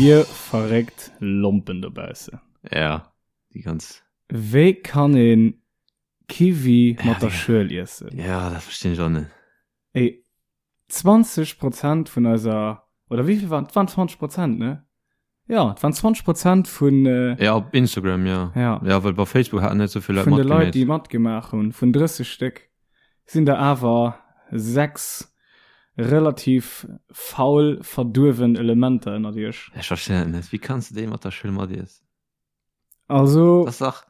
Dir verréckt Lompen dobaussen. Ja, déi ganz. Wéi kann een Kiwi mat der Schuel iessen? Ja, dat verstinn ech och net. Ey, 20 Prozent vun eiser, oder wéi vill waren, et waren 20 Prozent, ne? Ja, et waren 20 Prozent vun. Äh, ja, op Instagram, ja. Ja. Ja, well bei Facebook haten net sou vill Leit matgemaach. Vun de Leit, déi matgemaach hunn, vun 30 Stéck, sinn der awer 6 relativ faul, verduerwen Elementer ënnert iech. Ech verstinn dat net. Wéi kanns de déi mat der Schuel matiessen? Also, Das dach.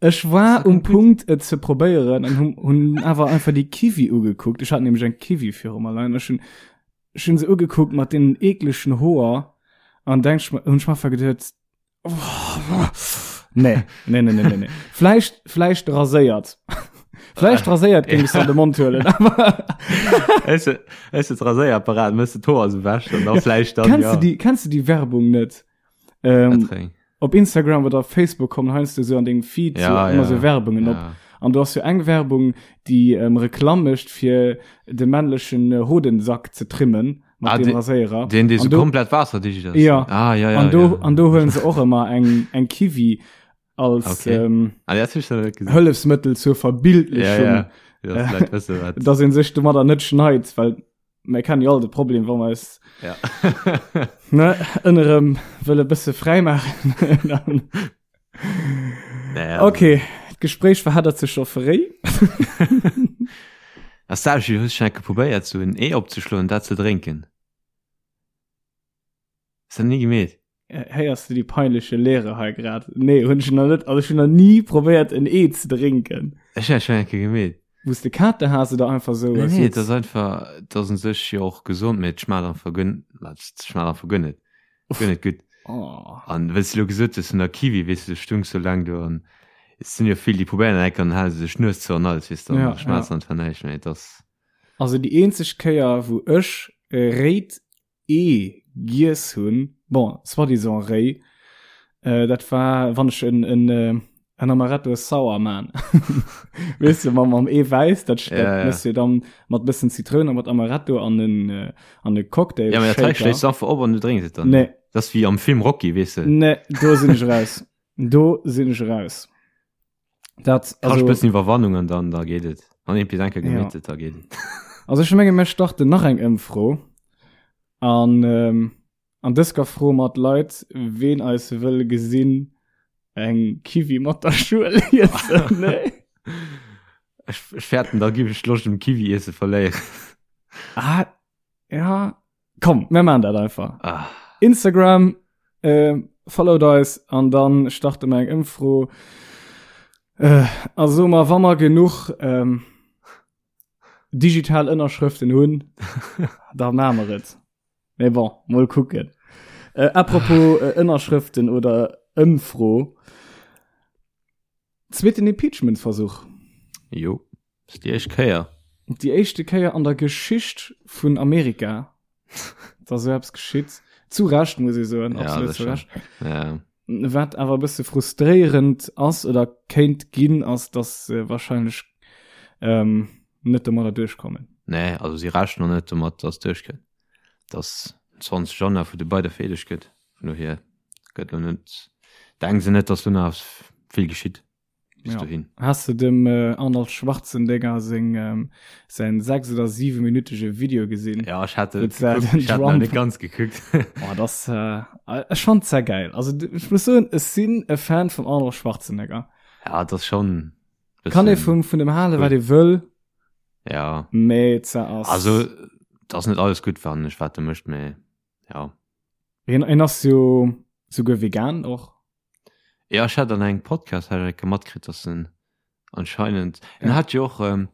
ech war um Punkt et ze probéieren an hun, hun awer einfach déi Kiwi ugekuckt. Ech hat nämlech eng Kiwi viru mer leien. Ech hun, ech hun se ugekuckt mat deenen eeklechen Hoer an denk ech mer, hun ech mer einfach geduet, oh, nee, nee, nee, nee, nee, nee. Vläicht, vläicht raséiert. Vläicht raséiert géing ech se an de Mond huelen, awer. Hues de, hues de d'Raséierapparat, mëss de d'Hoer sou wäsch an da vläicht dann, Kenns ja. du déi, kenns du déi Werbung net? Ähm, op Instagram oder Facebook kommen heiansdo so an dengem Feed ja, so, ja, immer so Werbungen ja. op. An du hast jo eng Werbung, déi ähm, Reklamm mécht fir de männlechen äh, Hodensack ze trimmen mat ah, dem de, Raséierer. Den, dee An so do- komplett wasserdicht ass. Ja. Ah, ja, ja. an do, ja. an do huelen se och ëmmer eng, eng Kiwi als Okay. ähm, Ah, dat hab ich noch net gesehen. Hëllefsmëttel zur Ja, Verbildlechung, ja. Ja, dass d'Leit wëssen, wat. dass een sech domadder net schneit, well mir kennen jo all de Problem, wa mer eis Ja. ne, ënnerem wëlle bësse fräi maachen. Dann Naja, also- Okay, d'Gespréich verheddert sech scho fréi. Ass dat, hues du schon eng Kéier probéiert, sou en Ee opzeschloen, dat ze drénken? Hues dat ni gemeet? Héiers du déi peinleche Leere hei grad? Nee, hunn ech nach net, also ech hunn nach ni probéiert en Ee ze drénken. Ech hunn dat schonn eng Kéier gemeet. Wou s de Kater has oder einfach sou? Nee, nee, et ass einfach, et ass un sech jo och gesond, mee et schmaacht einfach guer, et schmaacht einfach guer net, guer net gutt. Oh. An wéi s de elo gesot hues vun der Kiwi, weess de, du stungs sou laang do an et sinn jo vill, déi probéieren dat eng Kéier an dann hale se sech d'Nues zou an alles, weess de, an Ja, schmaacht ja. einfach näischt méi. Et ass. Also déi eenzeg Kéier wou ech e réit Ee giess hunn, bon, soi-disant réi, dat war wann ech en en en Amaretto Sour man. Weess de, mam mam Eewäiss, dat dat Ja, ja. mëss de dann mat bëssen Zitroun a mat Amaretto an en an e Cocktail Ja, mä dat hei Shaker. schléiss du einfach op an du drénks et dann. Nee. Dat ass wéi am Film Rocky, weess de. Nee, do sinn ech raus. Do sinn ech raus. Dat, Kascht also, bëssen Iwwerwannung an dann da geet et. Wann een bis eng Kéier Ja. gemeet huet, da geet et. also ech menge mir starten nach eng Ëmfro an ähm, an dës Kéier froe mer d'Leit, ween eis wëll gesinn eng Kiwi mat der Schuel iessen. Nee? Ech, ech fäerten, da giff ech d'Loscht um Kiwi iesse verléieren. Ah, ja, Komm, mir machen dat einfach. Ah. Instagram, äh, followt eis an dann starte mer eng Ëmfro. Äh, also mal, wann mer genuch ähm, digital Ënnerschrëften hunn, da machen mer et. Mais bon, mol kucken. Äh, apropos äh, Ënnerschrëften oder Ëmfro. Zweeten Impeachment-Versuch. Jo. Das ist déi éischt Kéier. Déi éischte Kéier an der Geschicht vun Amerika, dass esou eppes geschitt. Zu Recht, muss ee soen, Ja, absolut das zu schon. Recht. Ja. Wat awer e bësse frustréierend ass oder kéint ginn, ass, dass se wahrscheinlech ähm, net domadder duerchkommen. Nee, also si rechnen och net domat, dass et duerchkënnt. Dass 20 Januar vu de beide vereedegt gëtt. Vun dohier gëtt lo net, denken se net, dass do nach eppes vill geschitt. bis Ja. dohin. Has de dem äh, Arnold Schwarzenegger seng, ähm, säin 6 oder 7 minütege Video gesinn? Ja, ech hat Wou et se gekuckt, den ech hat nach Trump- net ganz gekuckt. Oh, das, äh, ech fand sehr geil. Also d- ich muss soen, ech sinn e Fan vum Arnold Schwarzenegger. ja, das schon. Kann ee vum, vun dem hale, wat ee wëll, Ja, mee ze ass. also, das net alles gutt fannen ech, wat de mécht, mee ja. En, en ass jo souguer vegan och. Ja, ech hat an engem Podcast hat ech matkritt, dass en anscheinend en Ja. hat jo och ähm,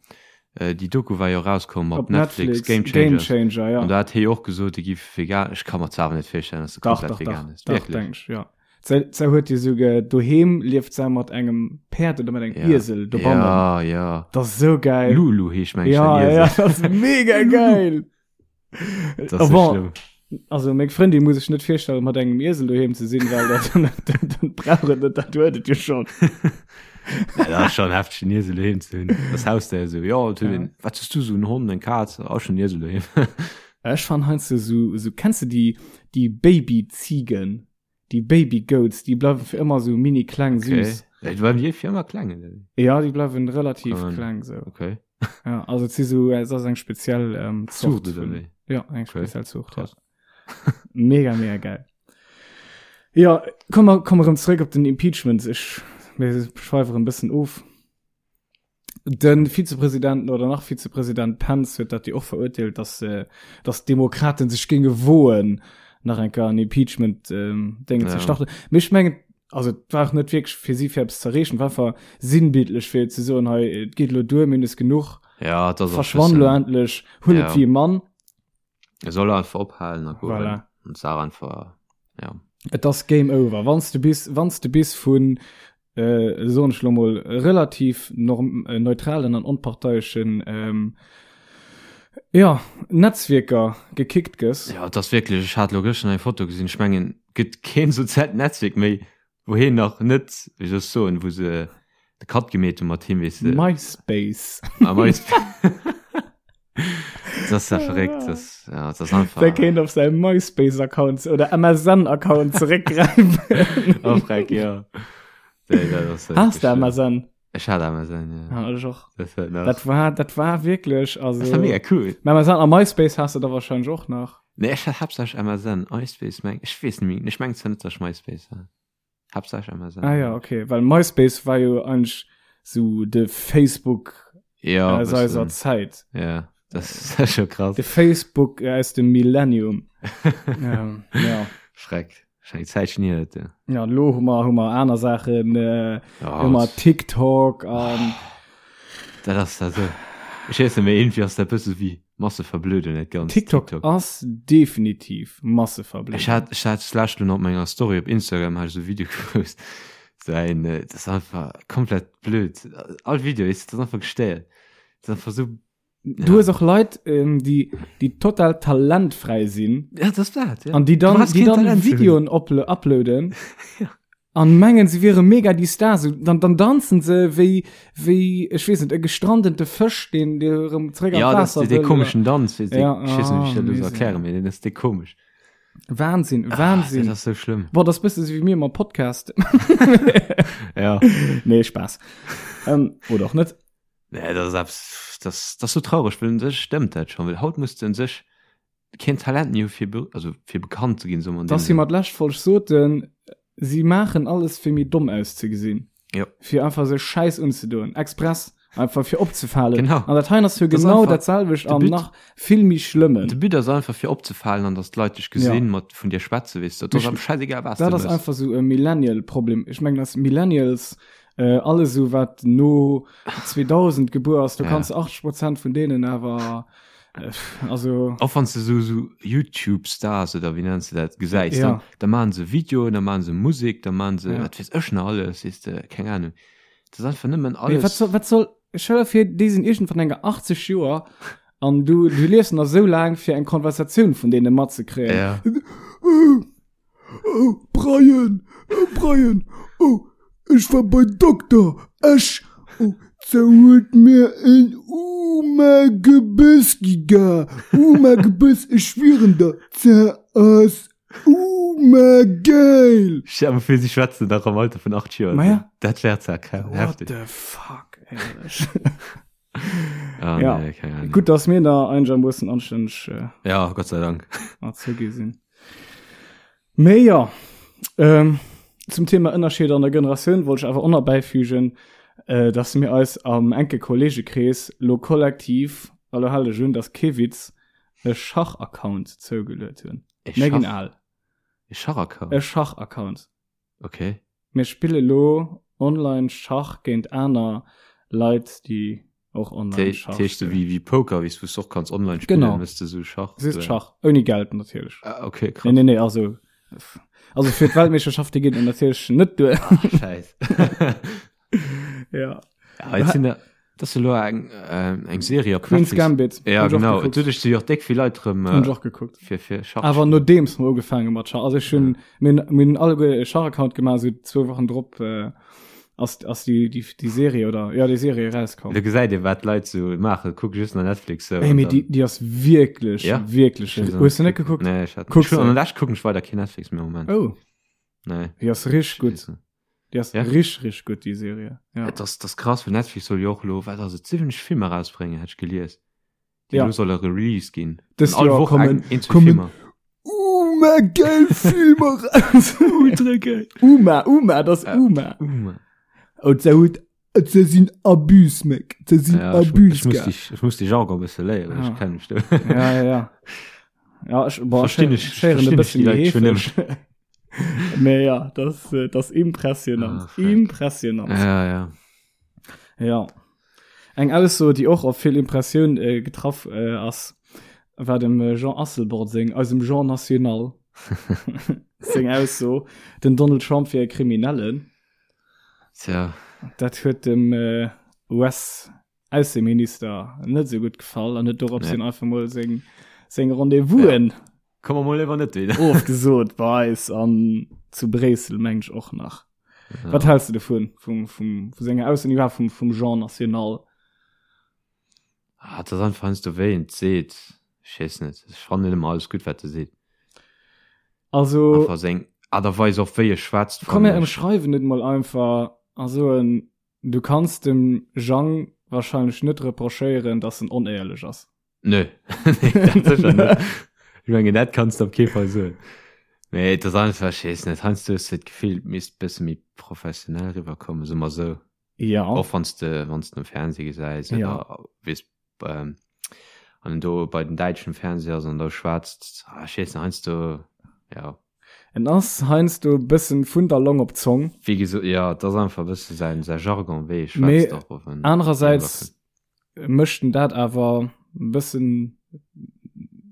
äh, déi Doku war jo rauskomm op, Op Netflix, Netflix, Game Game Changers. Changer, ja. An da hat hie jo och gesot, e giff vegan. Ech ka mer zwar awer net virstellen, dass e Dach, komplett dach, vegan dach, ass. dach, Wierklech? denk ich, ja. Se, se huet jo souguer doheem lieft se mat engem Päerd oder mat engem Ja. Iesel dobannen. Ja, ja. Das ist so geil. Lulu heescht meng ich ja, den ja, Iesel. das ist mega geil. Das Oh, ist bon. schlimm. Also meng Frëndin muss ech net virstellen mat engem Iesel doheem ze sinn, well dat, dann, dann brauch et net, dat huet et jo schon. Ja, dat ass schon hefteg, en Iesel doheem ze hunn. Das Hausdéier esou, ja, et huet Ja. een, wat hues du esou, en Hond, eng Kaz, ach, ech hunn en Iesel doheem. Ech fannen heiansdo sou, sou, kenns de déi, déi Baby-Ziegen, déi Baby-Goats, déi bleiwen fir ëmmer sou mini kleng, Okay. süß. Ja, déi bleiwen déi fir ëmmer kleng, oder wéi? Ja, déi bleiwen relativ Kann. kleng sou. Okay. Ja, also et si sou, et ass eng speziell ähm, Zucht Zort oder vun, wéi? ja, eng Okay. speziell Zucht, ja. Krass. Mega, mega geil. Ja, komm mer, komm erëm zréck op den Impeachment. Ech, mir schweifen e bëssen of. Den Vizepräsidenten oder nach Vizepräsident Pence huet dat jo och verurteelt, dass, äh, dass d'Demokraten sech géinge woen, nach eng Kéier en Impeachment ähm, Déngen ze Ja. starten. Mee ech mengen, also et war och net wierklech fir si fir eppes ze erreechen, war einfach sinnbildlech fir ze soen, hei, et geet elo duer, mir hunn es genuch, Ja, dat ass och verschwann elo bëssen- endlech, huel et Ja. wéi e Mann. Er soll einfach ophalen a goen. Voilà. Und sag einfach, ja. Et ass Game over. Wann s du bis, wann s du bis vun, äh, soen ech lo mol, relativ norm, äh, neutralen an onparteieschen, ähm, ja, Netzwierker gekickt gëss. Ja, et ass wierklech, ech hat lo gëschter eng Foto gesinn, ech mengen, gëtt keen soziaalt Netzwierk méi, wou hien nach net, wéi soll ech soen, wou se de Cut gemeet hu mat him, weess de. MySpace. Ah, MySpace. Das ass ja verréckt, das, ja, das ass einfach. Der kéint op säi MySpace-Account oder MSN-Account zeréckgräifen. Oh, freck, ja. Nee, dat ass Has de wirklich schlimm. MSN? Ech hat MSN, ja. Ja, ech och. Das war nach. Dat war, dat war wirklich, also. Das war mega cool. Mä MSN a MySpace has de da wahrscheinlech och nach. Nee, ech hat haaptsächlech MSN, iSpace meng, ech weess net méi, ech mengen zwar net, dass ech MySpace hat. Haaptsächlech MSN. Ah ja, okay, well MySpace war jo eigentlich so de Facebook Ja, aus eiser bëssen. Zäit. Ja, das ist scho krass. De Facebook aus dem Millennium. ähm, ja. Schreck. Schon eng Zäitchen hier, dat, ja. Ja, lo hu mer, hu mer aner Saachen, äh, Ja, hu mer TikTok an dat ass da so. Ech weess net, mee irgendwie ass dat bësse wéi Masseverblödung, dat Ganzt. TikTok, ass definitiv Masseverblödung. Ech hat, ech hat d'lescht lo nach op menger Story op Instagram hat ech esou e Video gepost. So ein, äh, das ist einfach komplett blöd. All Video ist, das ist einfach gestéiert. Das ist einfach so Du hues och Leit, ähm, déi, déi total talentfräi sinn. Ja, das dat, ja. An déi dann, Du brauchst déi keen dann Talent ze hunn. Videoen uplo uploaden. Ja. An mengen, se wiere mega déi Stars. Dann, dann danzen se wéi, wéi, ech weess net, e gestrandete Fësch, deen, dee erëm zréck an Ja, das d'Waasser ist dee wëll. komischen Danz, weess de, Ja, ich weess net, wéi ich ah, dat elo soll Misär. erklären, mee deen ass dee komesch. Wahnsinn, Wahnsinn. Ah, dat ass sou schlëmm. Boah, das bësse sou wéi mir mam Podcast. Ja. Nee, Spaß. ähm, oder och net. Nee, dat ass eppes, das, das ass sou traureg, well un sech stëmmt dat schon, well haut muss de un sech keen Talent méi hu fir, be, also fir bekannt ze ginn, soe mer an Dass deem si Sënn. mer d'lescht Folg soten, si maachen alles fir méi domm auszegesinn. Jo. Fir einfach sech Schäiss unzedoen, express, einfach fir opzefalen. Genau. An dat hei ass jo Das ass genau einfach dat selwecht de an But. nach vill méi schlëmmen. De But ass einfach fir opzefalen an dass d'Leit dech gesinn, Ja. mat vun dir schwätzen, weess de. Dat ass Ech- am schäisegal wat s Dat de ass mëss. einfach sou e Millennial-Problem. Ech mengen, dass Millennials Äh, alles sou wat no 2000 gebuer ass, du Ja. kanns 80 Prozent vun deenen awer äh, also Och wann du so, so YouTube-Stars oder wéi nenns du dat gesäis, Ja. dann, da maachen se Videoen, da maachen se Musek, da maachen se Ja. wat weess ech nach alles, weess de, keng Ahnung. Dat ass einfach nëmmen Mee alles. wat soll, wat soll, stell dir vir, déi sinn iergendwann enker 80 Joer an du, du liefs nach sou laang fir eng Konversatioun vun deene matzekréien. Ja. Oh, Brian, oh, Brian, oh, ech war bei Dokter, ech, oh, ze huet mir en Uma Gebëss giga, Uma Gebëss, ech schwieren der, ze ass Uma geil. Stell dir mal vir, si schwätzen nach am Alter vun 8 Joer. Ma ja. Dat wär zwar What heftig. the fuck, éierlech. Ah, Ja. nee, keine Ahnung. Gutt, dass mir da einigermoossen anstänneg äh, Ja, Gott sei Dank. erzogi sinn. Mee ja, ähm, zum Thema Ënnerscheeder an der Generatioun wollt ech awer och nach bäifügen, äh, dass mir eis am enke Kollegekrees lo kollektiv, a lo hal dech un, dass kee Witz, e Schach-Account zougeluet hunn. E Mir ginn Schach, al. e Schachaccount? E Schach-Account. Okay. Mir spille lo online Schach géint aner Leit, déi och online Schach Dat heescht spillen. wéi wéi Poker, wéi s wou s och kanns online spillen, Genau. mëss de sou Schach. Just Schach, ouni Geld natierlech. Ah, okay, krass. Nee, nee, nee, also also fir d'Weltmeeschterschaft, déi geet et natierlech net duer. Ah, Scheiß. Ja. Ja, jetzt sind da, das ist elo eng ähm, eng Serie op Queen's Netflix. Gambit. Ja, Hunn ech och genau. gekuckt. Doduerch si jo och déck vill Leit rëm Hunn ech äh, och gekuckt. fir fir Schach. Awer nodeems mer ugefaange mat Schach. Also ech hunn mir hunn mir hunn alleguer e Schach-Account gemaach, esou zwou Wochen drop äh, Ass, ass déi, déi, déi Serie oder ja déi Serie erauskomm. Do gesäit ee wat d'Leit sou maachen, kuck just nach Netflix sou. Ey, mee déi, déi ass wierklech, Ja. wierklech. Hues du net gekuckt? Nee, ech hat Kuck ech hun se. an der Lescht kucken ech weider keen Netflix méi am Moment. Oh, Nee. déi ass richteg gutt. Déi ass Ja. richteg, richteg gutt, déi Serie. Ja. Et ass, dat ass krass, well Netflix soll jo och elo, wat ass et, 70 Filmer erausbréngen, hat ech gelies. Déi Ja. elo solle released ginn. Dëst An all Joer Woch kommen- eng, een, zwee kommen- Filmer. Uma geil Filmer raus. Ultra geil. Uma, Uma, das Ja. Uma. Uma. Und se huet se sinn Abus Mec, se sinn Ja, ich, Abus. ich, muss die, ich muss die Jargon e bësse léieren, Ah. ech kenn mech do. Ja, ja, ja. Ja, ich, boah, Verstinn ich- schéieren e verstinn ich bëssen die Leit schon heefeg. Mee ja, das, äh, das impressionant. Ah, fuck. impressionant. Ja, ja. Ja. Eng Ausso, déi och op vill Impressioun äh, getraff äh, ass, war dem äh, Jean Asselborn seng, eisem Jean National, seng Ausso, den Donald Trump wier e Kriminellen. Tja. Dat huet dem äh, US Ausseminister net sou gutt gefall an huet dorops hin einfach mol seng seng Rendez-vousen ja. Komm mer mol léiwer net wieder. ofgesot bei eis an zu Bréissel meng ech och nach. Ja. Wat hältst du dovun vum vum vu senger Ausso iwwer vum vum Jean National? Ah, dat ass einfach heiansdo wéi en et seet. Ech weess net. Ech fannen net ëmmer alles gutt wat e seet. Also Einfach seng Aart a Weis och wéi e schwätzt komm mir fannen ech. ëmschreiwen et mol einfach a soen Du kanns dem Jang wahrscheinlech net reprochéieren, dass en onéierlech ass. Nö, nee, dat sécher net. Ech mengen, dat kanns de op kee Fall soen. Mee et ass einfach, ech weess net, heiansdo hues de d'Gefill, et misst bësse méi professionell eriwwerkommen, soe mer esou. Ja. Och wann s de, wann s de um Fernseh gesäis Ja. oder weess, ähm, an en do bei den däitschen Fernseh ass an da schwätzt, ah, ech weess net, heiansdo, ja. En ass heiansdo e bëssen vun der Long op d'Zong. Wéi gesot, jo, et ass einfach e bësse säin, säi Jargon, wéi e Mee schwätzt och, och en anerersäits mécht en dat awer e bëssen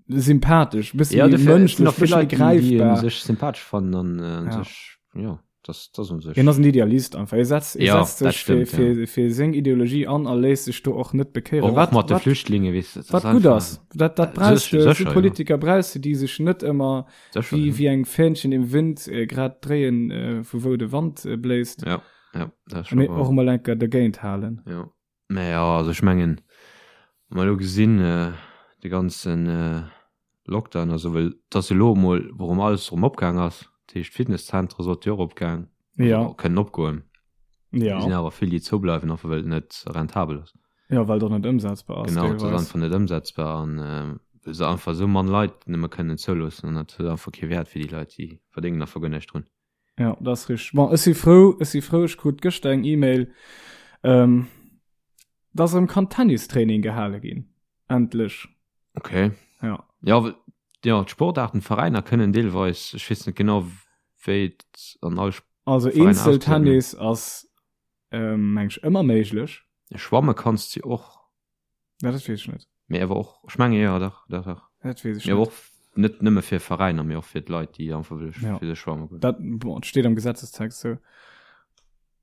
sympathesch, e bëssen Ja, méi dofir, et sinn mënschlech, och vill bëssen méi Leit, déi, déi en gräifbar. sech sympathesch fannen an Ja. sech, jo. Das, das un sech. Hien ass en Idealist einfach. Hie setzt, hie Ja, setzt dat sech fir, stimmt, fir, fir seng Ideologie an a léisst sech do och net bekéieren. Och, Wat, och mat de wat, Flüchtlinge, weess du, dat wat ass gutt einfach- ass. Dat, dat brauchst Sécher, du, so sécher, ja. Politiker brauchst du, déi sech net ëmmer Sécher, wéi, ja. wéi eng Fähnchen im Wind äh, grad dréien, äh, vu wou de Wand äh, bléist. Ja, ja, dat ass schon Mee wahr. och emol enker dergéint halen. Ja. Mä ja, also ech mengen, wa mer elo gesinn, de ganzen Lockdown a sou, well et ass jo elo emol, wou erëm alles erëm opgaang ass, dat heescht d'Fitnesszentere sollte jo och opgaang, Ja. also kënnen opgoen. Ja. Et sinn awer vill, déi zoubleiwen, einfach well et net rentabel ass. Ja, well et och net ëmsetzbar ass Genau, et ass deelweis. einfach net ëmsetzbar an well se einfach esou mann Leit nëmme kënnen zouloossen an dat huet einfach kee Wäert fir déi Leit, déi verdéngen einfach guer näischt drun. Ja, dat ass richteg. Bon, ech si frou, ech si frou, ech krut gëschter eng E-Mail, ähm, dass erëm kann Tennistraining gehale ginn. Endlech. Okay. Ja. Ja, well, ja, d'Sportaarten, d'Veräiner kënnen deelweis, ech weess net genau, wéi et an all Also Veräiner Eenzeltennis ass, ähm, meng ech, ëmmer méiglech. Schwamme kanns de och. Ja, dat weess ech net. Mee awer och, ech menge jo, dach, dach, dach. Dat weess ech Mee awer net. och net nëmme fir Veräiner, mee och fir d'Leit, déi einfach wëlle Ja. fir sech schwamme goen. Dat, bon, et steet am Gesetzestext sou.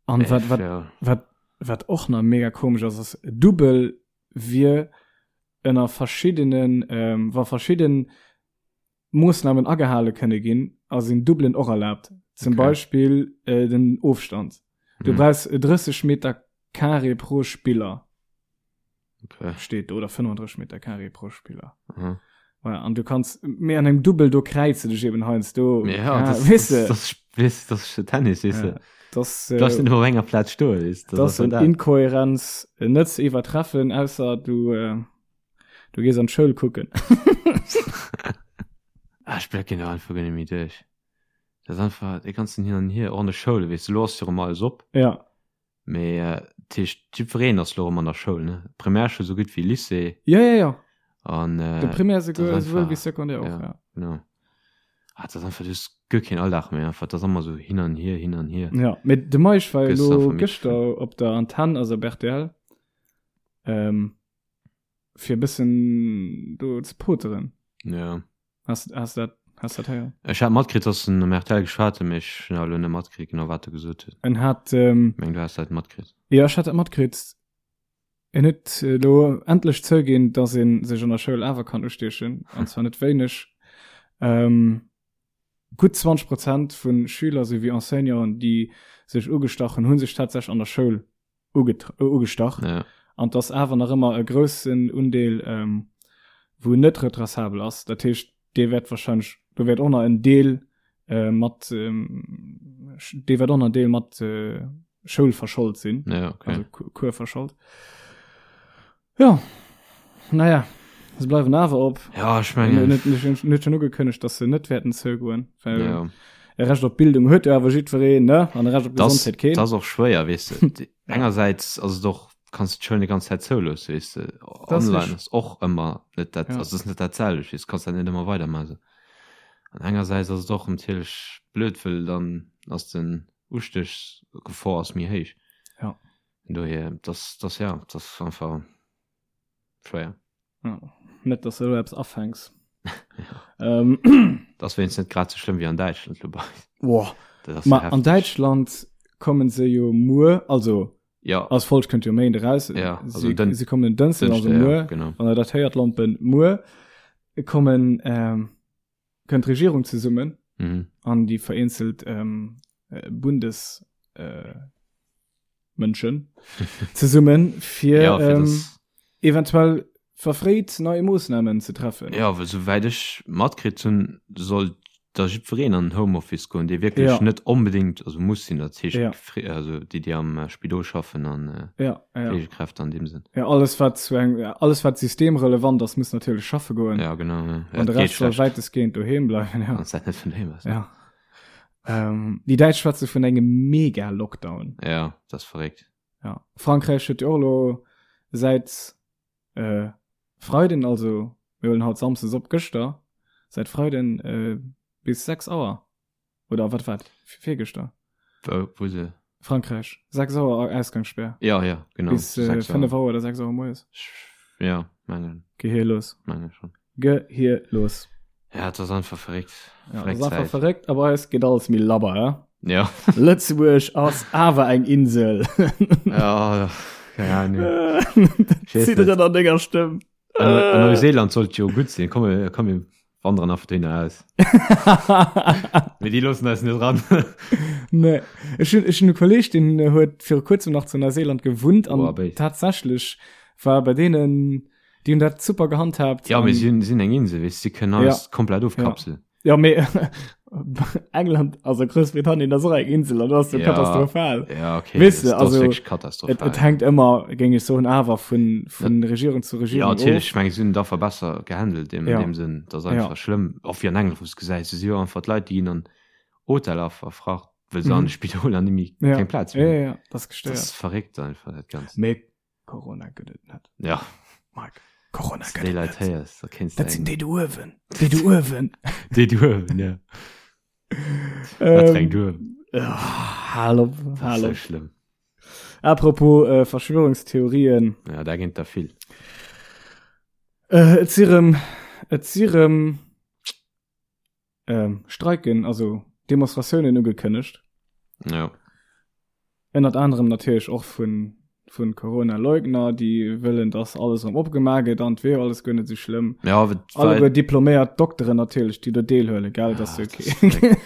An Äh, wat, wat, ja. wat, wat och nach mega komesch ass, ass Dubbel wier ënner verschiddenen, ähm, wa verschidden Moossnamen agehale kënne ginn, a sinn Dubbelen och erlaabt. Zum Okay. Beispill äh, den Ofstand. Du Mhm. brauchs 30 Meter Carré pro Spiller. Okay. Steet do, oder 35 Meter Carré pro Spiller. Mhm. Voilà, an du kanns mee an engem Dubbel do kräize dech eben heiansdo. Ja, ja, das, weess das, de. das, das, das ist Tennis, weess Ja, de. das, Du darfst äh, net op enger Plaz stoen, weess de. das ass sind dat. Inkohärenz äh, net ze iwwertreffen, ausser du, äh, du gees an d'Schoul kucken. Ah, ech blécken do einfach guer net méi duerch. Dat ass einfach dee ganzen Hin an Hier, och an de Schoule, weess de, lo ass jo erëm alles op. Ja. Mee dat heescht, jiddwereen ass lo erëm an der Schoul, ne? Primärschoul esou gutt wéi Lycée. Ja, ja, ja. An De Primär dat ass esouwuel einfach, wéi Secondaire och, ja, ja. genau. Ah, dat ass einfach, du hues guer keen Alldag méi einfach, dat ass ëmmer esou hin an hier, hin an hier. Ja, mee de Meisch war jo Gëss lo einfach midd gëschter op der Antenn, also op rtl, ähm, fir e bëssen do ze poteren. Ja. Has, has dat, has dat héieren? Ech hat matkritt, dass en um RTL geschwat huet, mee ech hunn awer elo net matkritt, genau wat e gesot huet. En hat, ähm, Meng du has dat matkritt. ja, ech hat dat matkritt. En huet elo endlech zouginn, dass ee sech an der Schoul awer kann ustiechen, an zwar net wéineg. Ähm. Gutt 20 Prozent vu Schüler souwéi Enseignanten, déi sech ugestach hunn, hu sech tatsächlech an der Schoul ugestach. Ja. An et ass awer nach ëmmer e groussen Undeel, ähm, wou net retraçabel ass. Dat heescht, dee wäert wahrscheinlech, do wäert och nach en Deel äh, mat, ähm, dee wäert och nach en Deel mat äh, Schoul verschold sinn. Ja, okay. Also Cours verschold. Ja, naja, se bleiwen awer op. Ja, ech mengen. Net, net, net schon ugekënnegt, dass se net wäerten zougoen. Well ja. e Recht op Bildung huet jo awer jiddwereen, ne? An e Recht op Gesondheet keen. Das ass och schwéier, weess de. Engersäits ass et och, kanns du d'Schoul net ganz Zäit zouloossen, weess de. Online ass och ëmmer net dat, ja. also ass net dat selwecht, weess, kanns dat net ëmmer weidermaachen. An engersäits ass et och natierlech blöd, well dann ass den Ustéchsgefor ass méi héich. Ja. Dohier, das, das, ja, das ass einfach schwéier. Ja. Net, dass du elo eppes afänks. ja. ähm. Das wéinst net grad so schlimm wie an Däitschland lo bei. Boah. Ma an Däitschland kommen se jo muer, also ja. als Folg kënnt jo Méinde raus. Ja, also sie, den, sie kommen den Dënschden, also muer, ja, genau. wann der dat héiert, Lompen, muer kommen ähm, kënnt d'Regierung zesummen mhm. an déi vereenzelt ähm, äh, Bundes äh, Mënschen zesummen fir, ja, fir ähm, eventuell verfréit neue Moossnamen ze treffen. Ja, well souwäit ech matkritt hunn, soll da jiddwereen an den Homeoffice goen, dee wierklech ja. net onbedéngt also muss sinn, dat heescht ja. also déi déi am äh, Spidol schaffen an äh, ja, ja. Pflegekräfte an deem Sënn. Ja, alles wat zu eng alles wat systemrelevant ass, muss natierlech schaffe goen. Ja, genau. Ja. An de Rest soll wäitestgehend doheem bleiwen. Ja. Wann dat net vun doheem ass. Ja. Ähm, déi Däitsch schwätze vun engem Mega-Lockdown. Ja, dat ass verréckt. Ja. Frankräich huet jo och elo säit äh, Freiden, also mir huelen haut Samsdes op, gëschter, säit Freiden äh, bis 6 Auer oder wat war virgëschter? Wou, wou se? Frankräich, 6 Auer Ausgangssperr. Ja, ja, genau. Bis äh, 5 Auer oder 6 Auer moies. Ja, mengen. Gehirlos. Mengen schon. Gehirlos. Ja, das ist einfach verréckt. Ja, das ist einfach verréckt, aber es geht alles méi labber, ja? Ja. Lëtzebuerg ass awer eng Insel. ja, keine Ahnung. Zidderen an denger Stëmm. An Neuseeland sollt jo gutt sinn. Komm, komm, mir wandern einfach dohinner aus. Mee déi loossen eis net ran. Nee. Ech hunn, ech hunn e Kolleg, deen huet viru kuerzem nach zu Neuseeland gewunnt an Boah, béis. tatsächlech war bei deenen, déi hunn dat super gehandhabt. Ja, mee an- si hunn, sinn eng Insel, weess, si kënnen alles Ja. komplett ofkapseln. Ja, mee England, also Groussbritannien ass och eng Insel an das ass jo Ja. katastrophal. Ja, okay. Weess de, das, das also, ass wierklech Et, katastrophal. et hänkt ëmmer, géing ech soen, awer vun, vun Regierung zu Ja, Regierung natierlech, of. ech meng, si hunn et einfach besser gehandelt in Ja. dem Sënn. Dat ass Ja. einfach schlëmm. Och wéi an England, wou s gesäis, do si jo einfach d'Leit, déi ginn an Hoteller verfracht, well se Mhm. an de Spidoler net méi Ja. keng Plaz Ja, méi hunn. ja, ja, das ass Dat gestéiert. ass verréckt einfach, dat Ganzt. Mee Corona gëtt et net. Ja. Mike, Corona Wann du gëtt déi et Leit net. héiers, da kéints du Dat sinn eng. déi do uewen. Déi do uewen. Déi do uewen, ja. Wat fir eng Ähm, do uewen? ja, hal op, Dat ass hal sou op. schlëmm. Apropos äh, Verschwörungstheorien. Ja, da ginn et der vill. Äh, et si rëm, et si rëm ähm, Streiken, also Demonstratiounen ugekënnegt. Ja. Ënnert anerem natierlech och vun, vun Corona-Leugner, déi wëllen, dass alles erëm opgemaach gëtt an et wier alles guer net esou schlëmm. Ja, wat, Alleguer diploméiert Dokteren natierlech, déi do deelhuelen, gell, dat ass jo okay.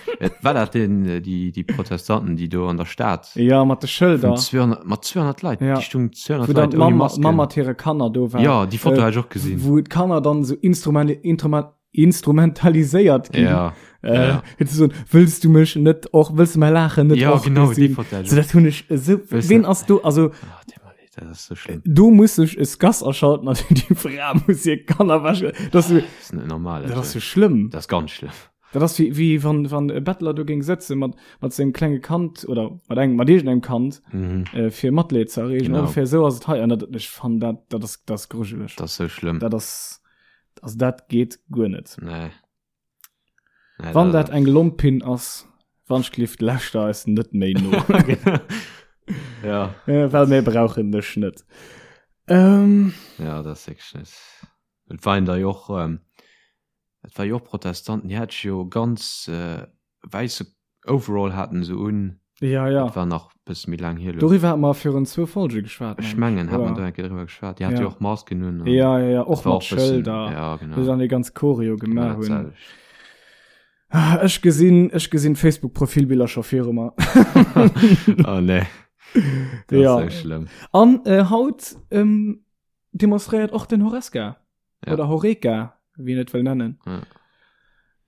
War dat den, äh, déi, déi Protestanten, déi do an der Stad Ja, mat de Schëlder. vun 200, mat 200 Leit, Ja. déi stungen 200 Wou dann Leit ouni d'Mamm Masken. Mamm mat hire Kanner do war. Ja, déi Foto Äh, hat ech och gesinn. Wou d'Kanner dann esou instrument, instrument, instrumentaliséiert ginn. Ja, Äh, ja. fir ze soen, wëlls du mech net och, wëlls du mäi Laachen net Ja, och genau, déi gesinn? Foto hat ech So, dat hunn ech esou, Wëlls ween du- ass do, also, Ah, tut mir leed, dat ass so schlëmm. do muss sech e Scass aschalten an déi Fra muss hir Kanner wäschen. Dat ass so, Das ist net normal. dat ass Also. so schlëmm. Das ist ganz schlimm. Dat ass wéi, wéi wann, wann e Bettler do géing sëtze mat, mat sengem klenge Kand oder mat engem, mat iergendengem Kand, Mhm. äh, fir Matleed ze erreegen. Genau. Ongefähr esou ass et hei. An dat, ech fannen dat, dat ass, dat ass grujeleg. Das ist so schlimm. Dat ass, Also dat geet guer net. Nee. Nee, Wann dat eng Lompin ass, Wanschglift läscht eis net méi no. ja. Äh, well mir brauchen dech net. Ähm, Ja, dat ass wierklech net. Et waren der jo och, ähm, et war jo och Protestanten, déi hat jo ganz äh, wäisse Overall haten se un. Ja, ja. Dat war nach bësse méi laang hier elo. Doriwwer hat mer virun zwou Folge geschwat. Ech mengen, hat mer do eng Kéier driwwer geschwat. Déi hat jo och Masken un. Ja, ja, ja, och mat Schëlder. Ja, genau. Wou se dann déi ganz Choreo gemaach hunn. Ah, ech gesinn, ech gesinn Facebook-Profilbiller scho viru mer. oh nee. Dat ja. ass schlëmm. An äh, haut ähm, demonstréiert och den Horesca. Ja. Oder Horeca, wéi een et wëll nennen. Ja.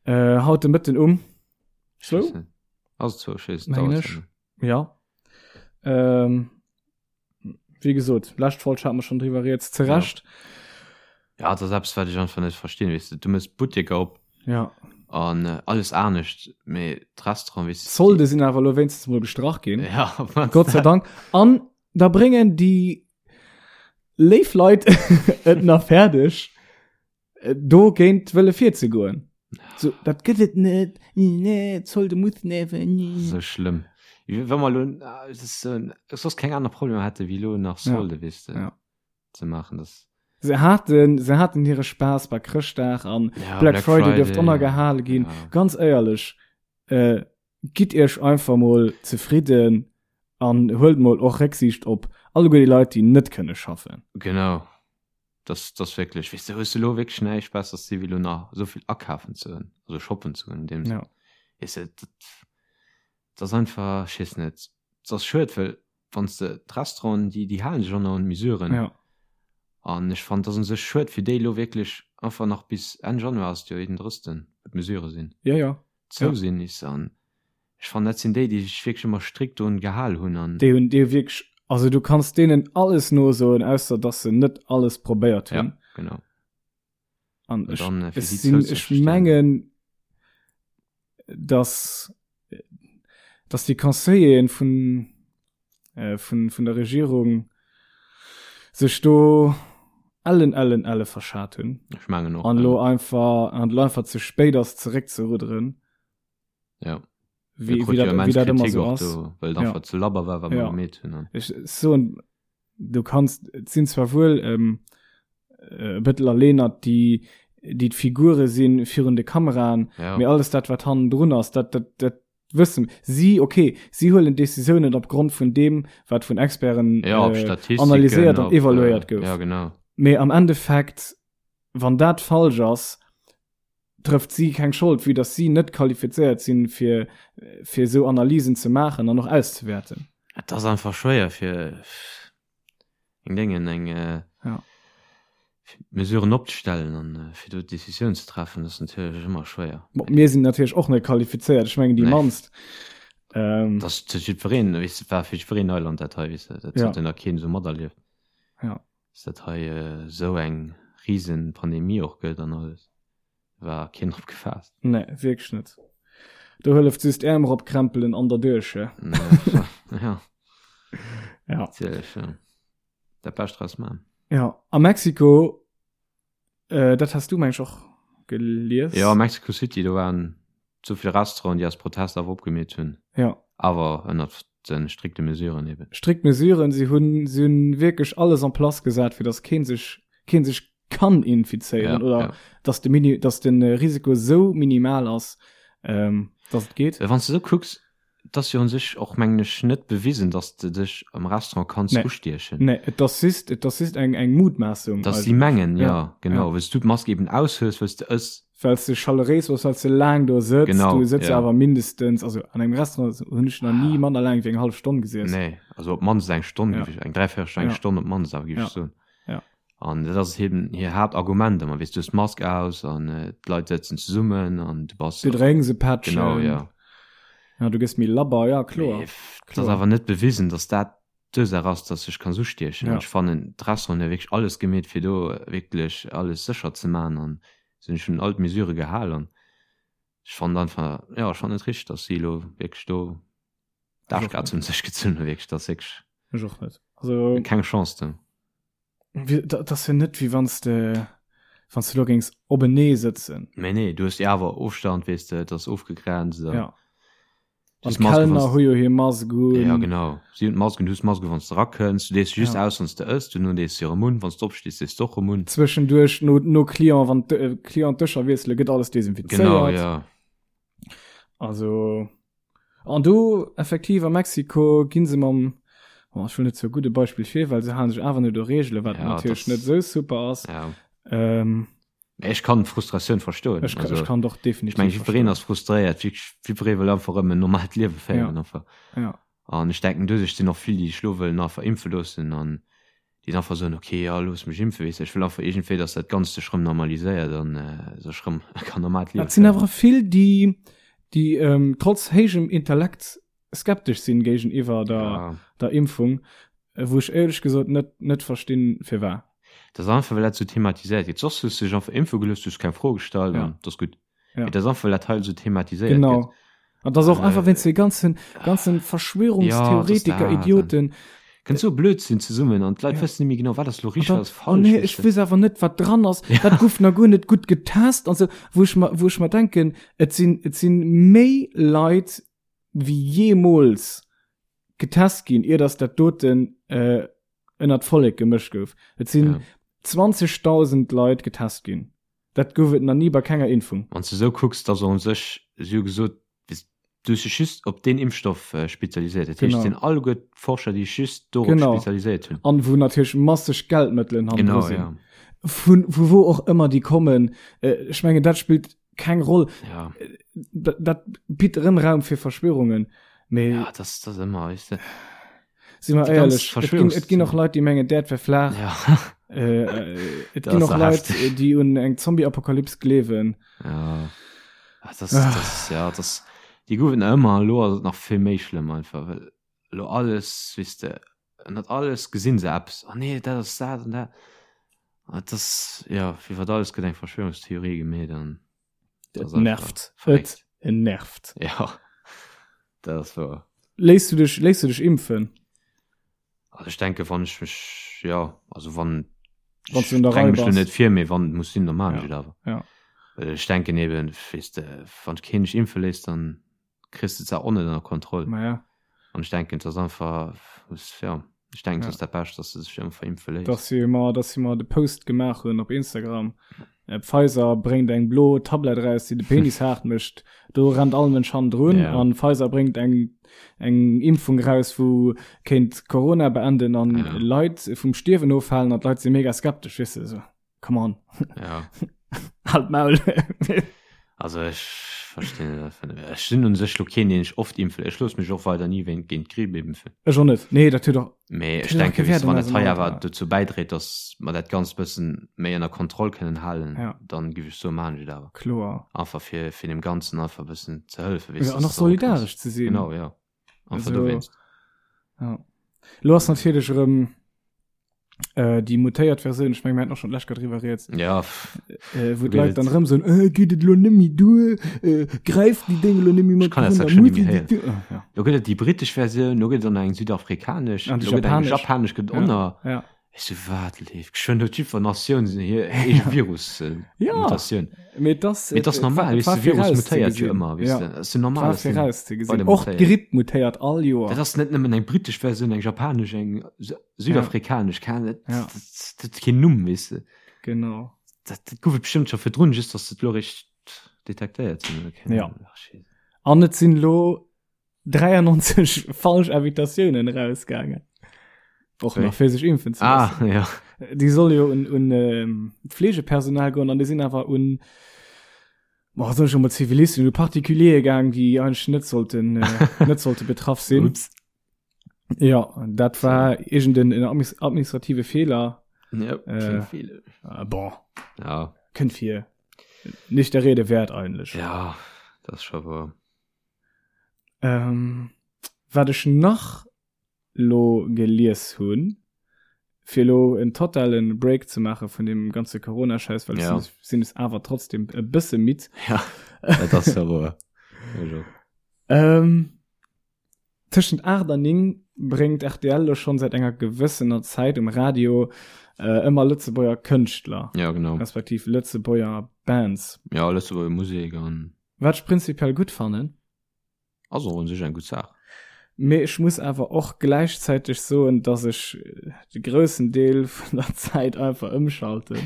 Äh, haut de Mëtten um. So? Also zwou, ech weess, Mengen ech. Ja. Ähm, wéi gesot, lescht Folg hate mer schonn driwwer rieds, zu Recht. Ja, dat ass eppes, wat ech einfach net verstinn, weess de. Du mëss Butteker op. Ja. An äh, alles anescht, mee d'Restaurant, weess de. D'Solde sinn awer elo wéinstens mol gestrach ginn. Ja, Gott sei Dank. An da bréngen déi léif Leit et nach fäerdeg, do géint wëlle virzegoen. So, dat gëtt et net, nee, Zolde muss neven. So schlëmm. Wa mer lo soss keng aner Problemer hätte wéi lo nach Solde, ja. weess de, ja. ze maachen, das. Se haten, se haten hire Spaass bei Chrëschtdag an ja, Black, Black Friday, Friday dierft ënnergehale ginn. Ja. Ganz éierlech, äh, gitt iech einfach mol zefridden an huelt mol och Récksiicht op alleguer déi Leit, déi net kënne schaffen. Genau. Das, das wierklech, weess de, hues de lo wierklech näischt Besseres ze di wéi lo nach esou vill akafen ze hunn, also shoppen ze hunn in deem Sënn. Ja. Weess de, dat, dat ass einfach, ech weess net, dat ass schued, well wann s de d'Restauranten, déi, déi halen sech och nach un d'Mesuren. Ja. An ech fannen, dat ass u sech schued fir déi elo wierklech einfach nach bis Enn Januar ass et jo, 31., wou d'Mesurë sinn. Ja, ja. Zou sinn, is an Ech fannen dat sinn déi, déi sech wierklech ëmmer strikt drun gehal hunn an. Déi hunn déi wierklech, also du kanns deenen alles nosoen, ausser dass se net alles probéiert hunn. Ja, genau. An ech, dann, ech sinn, ech mengen, dass, dass déi Conseilleren vun, äh, vun, vun der Regierung sech do ellen, ellen, elle verschat hunn. Ech mengen och. An lo einfach, an lo einfach ze spéit ass zeréckzerudderen. Ja. Wie, wie, dat, wie dat ëmmer so ass. Do, well ja. einfach ze labber war, wat ja. gemeet hunn. Ech soen, du kannst, et sinn zwar wuel ähm, äh, Bëttel a Lenert, déi déi d'Figure sinn virun de Kameraen, ja. mee alles dat wat hannendrun ass, dat, dat, dat wëssen si, okay, si huelen Decisiounen op Grond vun deem, wat vun Experten ja, äh, analyséiert an evaluéiert äh, gouf. Ja, genau. Mee am Endeffekt, wann dat falsch ass, trëfft si keng Schold, vue dass si net qualifizéiert sinn, fir, fir esou Analysen ze maachen an och auszewäerten. Et ass einfach schwéier fir eng Déngen, eng ja. Mesuren opzestellen an fir do Décisioun ze treffen, ass natierlech ëmmer schwéier. Bon, mir sinn natierlech och net qualifizéiert, ech mengen déi nee. mannst. Ähm, das fir jiddwereen, weess de, war fir jiddwereen Neuland dat hei, weess de, dat ja. huet nach keen esou materlieft. Ja. Dass dat hei esou eng riesen Pandemie och gëtt an alles, war keen drop gefaasst. Nee, wierklech net. Do hëlleft just Äerm eropkrempelen an derduerch, he? Ja. Ja. Natierlech, ja. Dat Bescht draus man. Ja, a Mexiko, äh, dat has du meng ech och gelies. Ja, Mexico City, do waren sou vill Restauranten, déi aus Protest awer opgemeet hunn. Ja. Awer ënnert de strikte Mesuren eben. Strikt Mesuren, si hunn, si hunn wierklech alles en place gesat, fir datt keen sech, keen sech kann infizéieren ja, oder ja. datt de Mini, datt den Risiko sou minimal ass, ähm, datt et geet. Wann s de sou kucks, Et ass jo un sech och, mengen ech, net bewisen, dass de dech am Restaurant kanns Nee. ustiechen. Nee, et ass just, et ass just eng, eng Mutmaassung Dass si eigentlech. mengen, Ja, jo, genau, ja. well s du d'Mask eben aushues, well s de ëss. Well s de chaleréis bass, well s de laang do sëtz. Genau, Du sëtz ja. awer mindestens, also an engem Restaurant hunn ech nach ni manner laang wéi eng hallef Stonn gesiess. Nee, also op d'mannst eng Stonn, Ja. géif ech, eng Dräiviertelstonn, eng Ja. Stonn op d'mannst awer, géif Ja. ech soen. Ja. An dat ass eben hir Haaptargument ëmmer, weess du hues d'Mask aus an d'Leit sëtzen zesummen an du bass. Du drénks e Pättchen. Genau, ja. Ja, du gëss méi labber, ja, kloer. Mee et ass awer net bewisen, datt dat d'Ursaach ass, datt sech kanns ustiechen. Ja. An ech fannen, d'Restauranten hu wierklech alles gemeet, fir do wierklech alles sécher ze maachen an se hunn sech un all d'Mesurë gehal an ech fannen einfach, jo, ech fannen et richteg, datt si elo wierklech do d'Aarschkaz un sech gezunn hunn, wierklech, dat ass wierklech. Ech och net. Also. Keng Chance do. Dat ass jo net wéi wann s de wann s de do géings openee sëtzen. Mee nee, du hues jo awer Ofstand, weess de, et ass ofgegrenzt an. Ja. An d'Kellner hu jo hir Mask un. Ja genau, si hunn d'Mask un, du hues d'Mask un wann s de erakënns, du dees se just Ja. aus wann s de ëss, duerno dees se erëm un, wann s de opstees dees de och erëm un. Zwëschenduerch no no Client, wann d'Client d'Dëscher wiessele gëtt alles desinfizéiert. Genau, ja. Also. An do effektiv a Mexiko ginn se mam, oh, ech wëll net sou gudde Beispill fir, well se halen sech awer net u Reegelen, wat Ja, natierlech das- net sou super ass. Ja. Ähm. Mä ech kann d'Frustratioun verstoen. Ech, also, ech kann doch definitiv. Ech meng, jiddwereen ass frustréiert, jiddweree wëll einfach erëm en normalt Liewe féieren ja. einfach. Ja. An ech denken, doduerch sinn och vill, déi sech lo wëllen einfach impfe loossen an déi dann einfach soen, okay, ja, looss mech impfen, weess de, ech wëll einfach iergendwéi, dass dat Ganzt sech rëm normaliséiert an äh, sech rëm kann normalt Liewe Et sinn awer vill, déi, déi ähm, trotz héijem Intellekt skeptesch sinn géigeniwwer der, ja. der Impfung, wou ech éierlech gesot net, net verstinn, firwat. Dat ass einfach, well dat sou thematiséiert gëtt. Soss hues du dech einfach impfe gelooss, du hues keng Fro gestallt ja. an dat ass gutt. Ja. Dat ass einfach, well dat hei sou thematiséiert genau. gëtt. An das och einfach wéinst de ganzen, ganzen Verschwörungstheoretiker, ja, Idioten. Kënnt sou Blödsinn zesummen an d'Leit ja. wëssen net méi genau, wat ass lo richteg, wat ass falsch. Oh nee, ech weess awer net, wat dran ass. Ja. Dat gouf nach guer net gutt getest an sou, wou ech mer, wou ech mer denken, et sinn, et sinn méi Leit wéi jeemools getest ginn, ier dass dat doten äh, ënnert d'Vollek gemëscht gouf. Et sinn ja. 20.000 Leit getest ginn. Dat gouf et nach ni bei kenger Impfung. Wann s de esou kucks, da soll sech, si hu gesot, du hues dech just op deen Impfstoff spezialiséiert. Dat heescht, et sinn alleguer d'Forscher, déi sech just dorop spezialiséiert hunn. An wou natierlech masseg Geldmëttelen hannendru sinn. Vu vu wou och ëmmer déi kommen. Ech mengen, dat spillt keng Roll. Dat bitt erëm Raum fir Verschwörungen. Mee. Ja, dat ass ëmmer, weess de. Si mer éierlech, et ginn, et ginn och Leit, déi mengen, d'Äerd wär flaach. Ja. Äh, äh, et ginn och Leit, déi un eng Zombie-Apokalyps gleewen. Ja. Ah, das, ah. das, ja, das, déi goufen ëmmer, elo ass et nach vill méi schlëmm einfach, well elo alles, weess de, ënnert alles gesinn se eppes, oh nee, dat ass dat an dat. Ah, das, ja, iwwer alles gëtt eng Verschwörungstheorie gemeet an. Et nervt. Et nervt. Ja, dat ass wouer. Léiss du dech, léiss du dech impfen? Also ech denke wann ech mech, ja, also wann Wann du un der Rei mech bass. net vir, mee wann et muss sinn, da maan ech Ja, et awer. ja. Well ech denken eben, weess de, wann keen dech impfe léisst, dann kriss de d'Saach och net ënner Kontroll. Ma ja. An ech denken, et ass einfach, muss, ja, ech denken, et Ja. ass dat Bescht, dass de sech einfach impfe léisst. Dass si mer, dass si mer de Post gemaach hunn op Instagram, Pfizer bréngt eng blo Tablett eraus, déi de Penis haart mécht, do rennt all Mënsch hannendrun. Ja. An Pfizer bréngt eng, eng Impfung eraus, wou kéint Corona beenden an Ja. Leit vum Stierwen ofhalen an d'Leit si mega skeptesch, weess de, esou, come on. Ja. Halt d'Maul. Also ech verstinn et einfach net. Ech sinn un sech lo keen, deen sech oft impfe. Ech loosse mech och weider ni wéint géint d'Gripp impfen. Ech och net. Nee, dat huet och. Mee Dat ech huet och denke kee weess Wäert de, an wann dat eisem hei Alter. awer dozou bäidréit, datt mer dat Ganzt bëssen méi ënner Kontroll kënnen halen, Ja. dann giff ech soen, maan ech et awer. Kloer. Einfach fir fir deem Ganzen einfach e bëssen ze hëllefen, weess Ja, de, an dass och et erëm kënnt. solidaresch ze sinn. Genau, ja. Einfach Also, dowéinst. ja. Lo ass natierlech erëm äh, déi mutéiert Versioun, ech meng, mir haten och schon d'lescht Kéier driwwer rieds, Ja, äh, wou Wéi d'Leit et- dann erëm soen, äh, geet et lo net méi duer, äh, gräift déi Déng lo net méi mat kann dat drun, schon muss nicht méi déi duer. Ah, ja. Lo gëtt et déi britesch Versioun, lo gëtt et dann eng südafrikanesch, An déi lo gëtt eng japanesch. japanesch gëtt Ja. och nach. Ja. Ech so, wat leeft? Geschwënn huet jiddwer Natioun hir eege Virus, äh, Ja. Mutatioun. Mee das, Mee das ass normal, weess de, Virus mutéiert jo ëmmer, weess Ja. de. Das ass jo normal, War dass den vorauszegesinn. weider Och mutéiert. d'Gripp mutéiert all Joer. Dat ass net nëmmen eng britesch Versioun, eng japanesch, eng südafrikanesch, keng, dat, Ja. dat, dat huet keen Numm, weess de. Genau. Dat, dat gouf et bestëmmt scho virdrun, just dass se et lo eréischt detektéiert hunn, oder keng Ja. Ahnung. Ach, Scheisse. An et sinn lo 93 falsch Invitatiounen rausgaangen. Och nach fir sech impfen ze Ah, loossen. ja. Déi soll jo un, un ähm, d'Fleegepersonal goen an déi sinn awer un boah, soll ich schon mal Zivilisten, un Particuliere gaang, déi eigentlich net sollten, äh, net sollte betraff sinn. Ups. Ja, dat war irgenden en administrative Fehler. Ja, Äh, viele. Äh, boah, Ja. kënnt vir. Nicht der Rede wert eigentlich. Ja, das ist schon wahr. Ähm, wat ech nach lo gelies hunn, fir lo en totalen Break ze maache vun deem ganze Corona-Schäiss, well Ja. ech sinn es awer trotzdem e bësse midd. Ja, dat ass ja woer. Also. Ähm, tëschent 8 an 9 bréngt rtl lo schonn säit enger gewëssener Zäit um Radio äh, ëmmer Lëtzebuerger Kënschtler, Ja, genau. respektiv Lëtzebuerger Bands. Ja, Lëtzebuerger Musek an Wat ech prinzipiell gutt fannen. Ass och un sech eng gutt Saach. Mee ech muss awer och gläichzäiteg soen, dass ech de groussen Deel vun der Zäit einfach ëmschalten.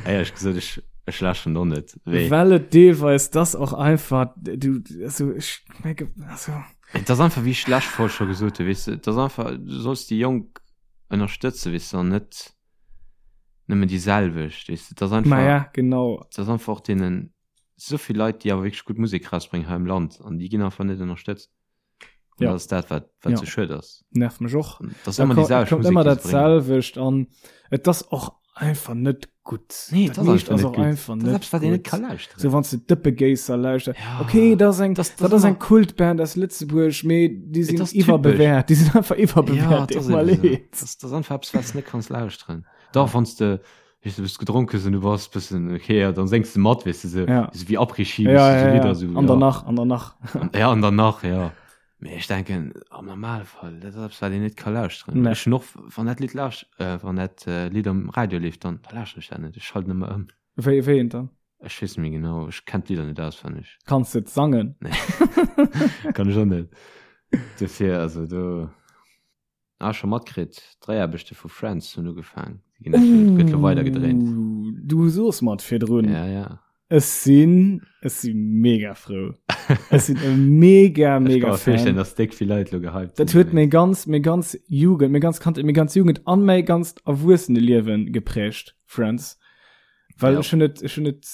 Éierlech gesot, ech, ech läschen och net. Wéi? Well et deelweis dass och einfach, du, also ech menge, also. Et ass einfach, wéi ech d'lescht Folg scho gesot hunn, weess de, et ass einfach, du solls déi Jonk ënnerstëtzen, weess de, an net. Nëmmen déi selwecht, weess de. Dat ass einfach. Ma ja, genau. Dat ass einfach och deenen, esou vill Leit, déi awer wierklech gutt Musek rausbréngen hei am Land an déi ginn einfach net ënnerstëtzt. An Ja. dat ass dat, wat, wat Ja. sou schued ass. Nervt mech och. An dat ass Da ëmmer ko- déi et selwecht kommt Musek, ëmmer déi dat se bréngen. selwecht an et ass och einfach net gutt. Nee, Dat dat ass meescht einfach ass net och gutt. einfach Dat ass net eppes, wat een net gutt. ka lauschteren. Sou wann s de Dëppegéisser lauschters. Ja. Okay, dat ass eng, Das- das dat ass ëmmer- eng Kultband aus Lëtzebuerg, mee déi sinn ass typesch. iwwerbewäert. Déi sinn einfach Ja, iwwerbewäert. dat ass Deet mer eben sou. leed. Dat ass, dat ass einfach eppes, wat s de net kanns lauschteren. Dach, wann s de, weess du, bist gedronk hues an du bass bëssen okay, ja, dann séngs de mat, weess de, sou, Ja. sou wéi Après-Ski, Ja, weess de, ja, sou ja. Lidder, sou, An ja. danach, an danach. Ja, an danach, ja. Mee ech denken, am Normalfall, dat ass eppes, wat een net ka lauschteren. Nee. Ech hunn och, wann dat Lidd lauscht, äh, wann dat äh, Lidd am Radio leeft, dann da lauschteren ech dat net. Ech schalten ëmmer ëm. Wéi, wéi eent dann? Ech weess net méi genau, ech kenn d'Lidder net auswenneg. Kanns de et sangen? Nee. Kann ech och net. Dofir, also do. Ah, scho matkritt, d'Dréiaarbechte vu Friends hunn ugefaang. Déi ginn actually, gëtt lo weider gedréint. Ooh, du soos mer et virdrun. Ja, ja. Ech sinn, ech si mega frou. Ech sinn e mega, Ech mega ka mer virstellen, Fan. dass déck vill Leit lo gehypt Dat sinn huet meng dowéinst. ganz, meng ganz Jugend, meng ganz Kandheet, meng ganz Jugend an mäi ganzt Erwuesseneliewen geprägt, Friends. Well Ja. ech hunn et, ech hunn et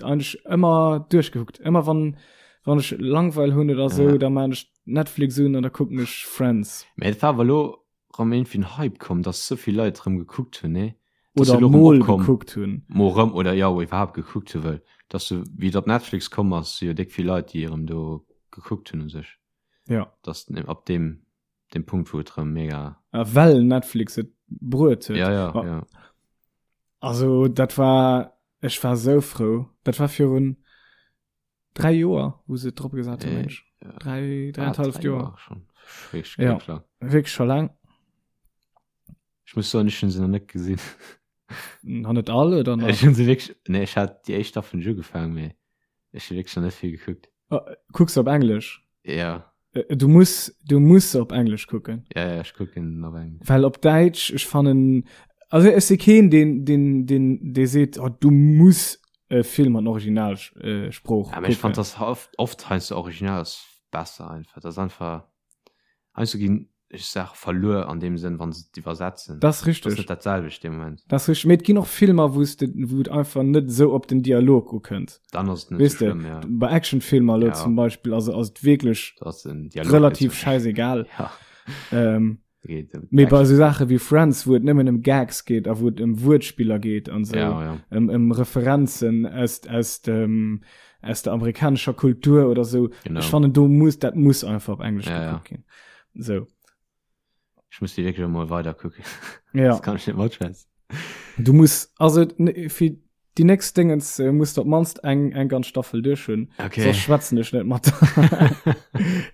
eigentlech ëmmer duerchgekuckt. Ëmmer wann, wann ech Langweil hunn oder sou, Ja. da maan ech Netflix un an da kucken ech Friends. Mä et war awer lo rëm iergendwéi en Hype komm, dass sou vill Leit rëm gekuckt hunn, nee? Dass Oder se lo rëm mol opkomm, gekuckt hunn. mol rëm oder jo, iwwerhaapt gekuckt hunn, well dass se, wéi et op Netflix komm ass, si jo déck vill Leit, déi erëm do gekuckt hunn u sech. Ja. Dass ab deem, deem Punkt, wou et rëm mega. A well Netflix et bruet huet. Ja, ja, Ma ja. Also dat war, ech war sou frou. Dat war virun 3 Joer, wou se et drop gesat hunn, meng ech. Ja. 3, Ah, dräieinhalb 3 Joer. Joer schon. Wierklech Ja. wierklech lang. Wierklech scho laang. Ech muss soen, ech hunn se nach net gesinn. Nach net all oder nach? Ech hunn se wierklech, nee, ech hat déi éischt Staffel hunn ech ugefaangen, mee ech hu wierklech nach net vill gekuckt. Kucks de op Englesch? Ja. Du muss, du muss se op Englesch kucken. Ja, ja, ech kucken op Englesch. Well op Däitsch, ech fannen, also ech si keen, deen, deen, deen, dee seet, oh, du muss e Film an Originalsprooch Ja, mee ech kucken. fand dass oft, oft heiansdo Original ass besser einfach. Dat ass einfach, heiansdo ginn Saache verluer an deem Sënn, wann se et iwwersetzen. Dat ass Dat ass richteg. net dat selwecht dee Moment. Dat ass richteg. Mee et ginn och Filmer, wou s de, wou et einfach net esou op den Dialog ukënnt. Dann ass et net Weess sou de, schlëmm, ja. bei Actionfilmer elo Ja. zum Beispill, also ass et wierklech Da ass den Dialog net relativ sou. schäisegal. Ja. Ähm, Geet ëm mee bei Action. esou Saache wéi Friends, wou et nëmmen ëm Gags geet a wou et ëm Wuertspiller geet an esou, Ja, ja. ëm, ëm Referenzen aus, aus dem, aus der amerikanescher Kultur oder sou. Genau. Ech fannen, do muss, dat muss einfach op Englesch Ja, ja. gekuckt ginn. Sou. Ech muss déi wierklech emol weider kucken. Ja. Das kann ech net matschwätzen. Du muss, also fir déi nächst Dingens äh, muss du op mannst eng, eng ganz Staffel duerch hunn. Okay. Soss schwätzen ech net mat.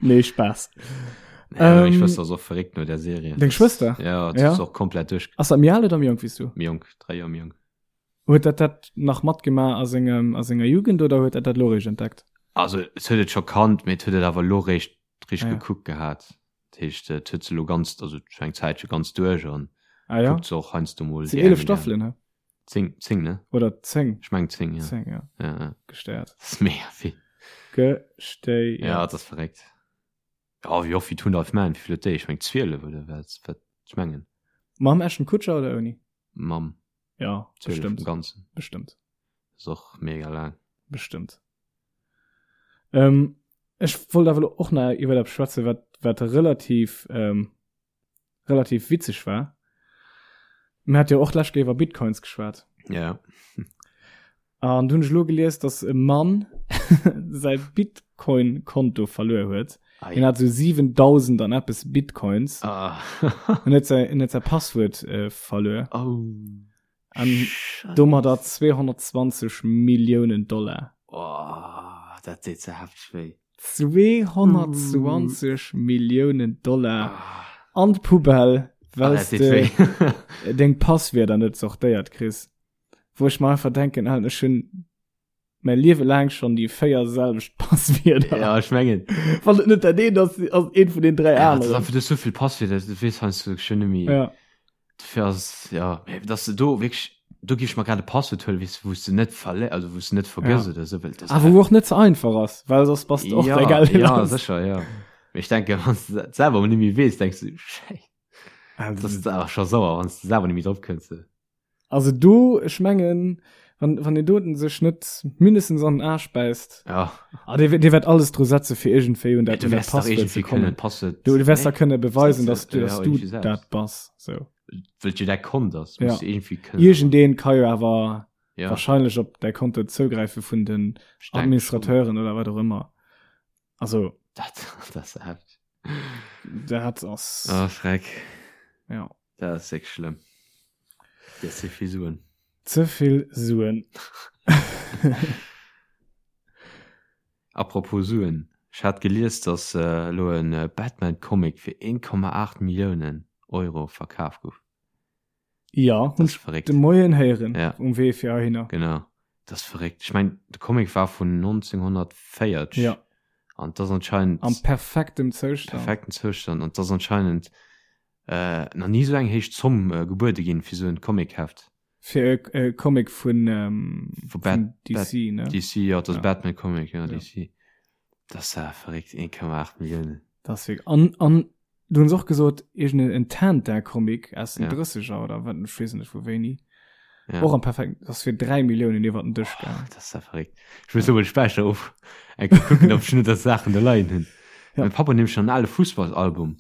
nee, Spaß. Nee, ähm, meng Ähm, Schwëster ass och verréckt no der Serie. Deng Schwëster? Ja, dat Ja. ass och komplett duerch. Ass dat méi al oder méi jonk wéi s du? Méi jonk, 3 Joer méi jonk. Huet dat dat nach matgemaach a sengem, a senger Jugend oder huet dat dat lo réischt entdeckt? Also et huet et scho kannt, mee et huet et awer lo réischt richteg Ah ja. gekuckt gehat. Dat heescht, et huet se lo ganz, also scho eng Zäitche ganz duerch an Ah ja? kuckt se och heiansdo mol Sinn déi 11 eng. Staffelen, he? 10, 10, ne? Oder 10? Ech meng 10, ja. 10, ja. Ja, ja. Gestéiert. Dat ass mega vill. Gestéiert. Ja, dat ass verréckt. Ja, wéi och wéi Two and a Half Men, wéi vill huet déi? Ech meng 12 oder wat, wat, ech mengen. Mam Ashton Kutcher oder ouni? Mam. Ja, 12 bestimmt. am Ganzen. Bestimmt. Ass och mega laang. Bestimmt. Ähm, ech wollt awer lo och nach iwwer eppes schwätzen, wat, wat relativ, ähm, relativ witzeg war. Mir hat jo och d'lescht Kéier iwwer Bitcoins geschwat. Ja. An du hunn ech lo gelies, dass e Mann säi Bitcoin-Konto verluer huet. Ei. Hien hat sou 7000 an eppes Bitcoins. Ah. En huet säi, en huet säi Passwuert äh, verluer. Oh. An domadder 220 Milliounen Dollar. Oh, dat deet ze hefteg wéi. 220 Milliounen Dollar an d'Poubelle, well s de deng Passwierder net sortéiert kriss. Wou ech mer einfach denken, Alter, ech hunn mäi Liewe laang schonn déi 4 selwecht Passwierder. Ja, ech mengen. Wann et net dat eent ass, ass et eent vun den 3 Ja, dat ass aneren. einfach, du hues souvill Passwierder, du weess heiansdo schonn net méi. Ja. Dofir ass, ja, mee dass de do wierklech, do géif ech mer grad e Passwuert huelen, weess de, wou s de net verlé-, also wou s de net vergëss Ja. oder esou, well dat Ah, wou och net ze einfach ass, well soss bass de och ja, däi Geld ja, lass. sécher, ja. Mee ech denken, wann s de dat selwer mol net méi weess, denks du, Schäiss, Also, dat ass awer scho sauer, wann s de selwer net méi drop kënns. Also do, ech mengen, wann, wann deen doten sech net mindestens an den Aarsch bäisst. Ja. Ah, dee, dee wäert alles dru setze fir iergendwéi un dat, Du un dat wäers dach Passwuert ze iergendwéi kënnen kommen. d'Passwuert. Du, du wäers da Nee? kënne beweisen, Setze, dass du, ja, dass du iergendwéi selbst. dat bass. So. Well jo däi Kont ass, Ja. muss du iergendwéi kënnen. Iergendeen ka jo awer Ja, wahrscheinlech op däi Konto zougräife vun den ech denk schon. Administrateuren oder wat och ëmmer. Also. Dat, dat ass heftig. Dat ass. Ah, Schreck. Ja. Dat ass wierklech schlëmm. Dat ass ze vill Suen. Ze vill Suen. Apropos Suen, ech hat gelies, datt elo e Batman-Comic fir 1,8 Milliounen Euro verkaf gouf. Ja, Dat ass verréckt. De Moien héieren ja. um Wee fir heihinner. Genau, dat ass verréckt. Ech meng, de Comic war vun 1940. Ja. An dat ass anscheinend. Am perfektem Zoustand. Perfekten Zoustand. An dat ass anscheinend äh, nach ni esou eng héich Zomm äh, gebuede ginn fir esou en Comicheft. Fir e äh, Comic vun, ähm, vu Bat vun DC, Bat ne? DC, ja, dat ass ja. Batman Comic, ja, ja. DC. Dat ass ja verréckt, 1,8 Milliounen. Dat ass wierklech. An, an Du hunn se och gesot, iergend en Tintin-Comic aus den Ja. 30er oder wat, ech weess net vu wéini. Ja. Och am perfekt, dat ass fir 3 Milliounen iwwer den Dësch Oh, gaangen. dat ass ja verréckt. Ech muss elo mol de Späicher of eng Kéier kucken, ob ech net dat Saachen do leien hunn. Ja. Mäi Papp huet nämlech nach en ale Fussballsalbum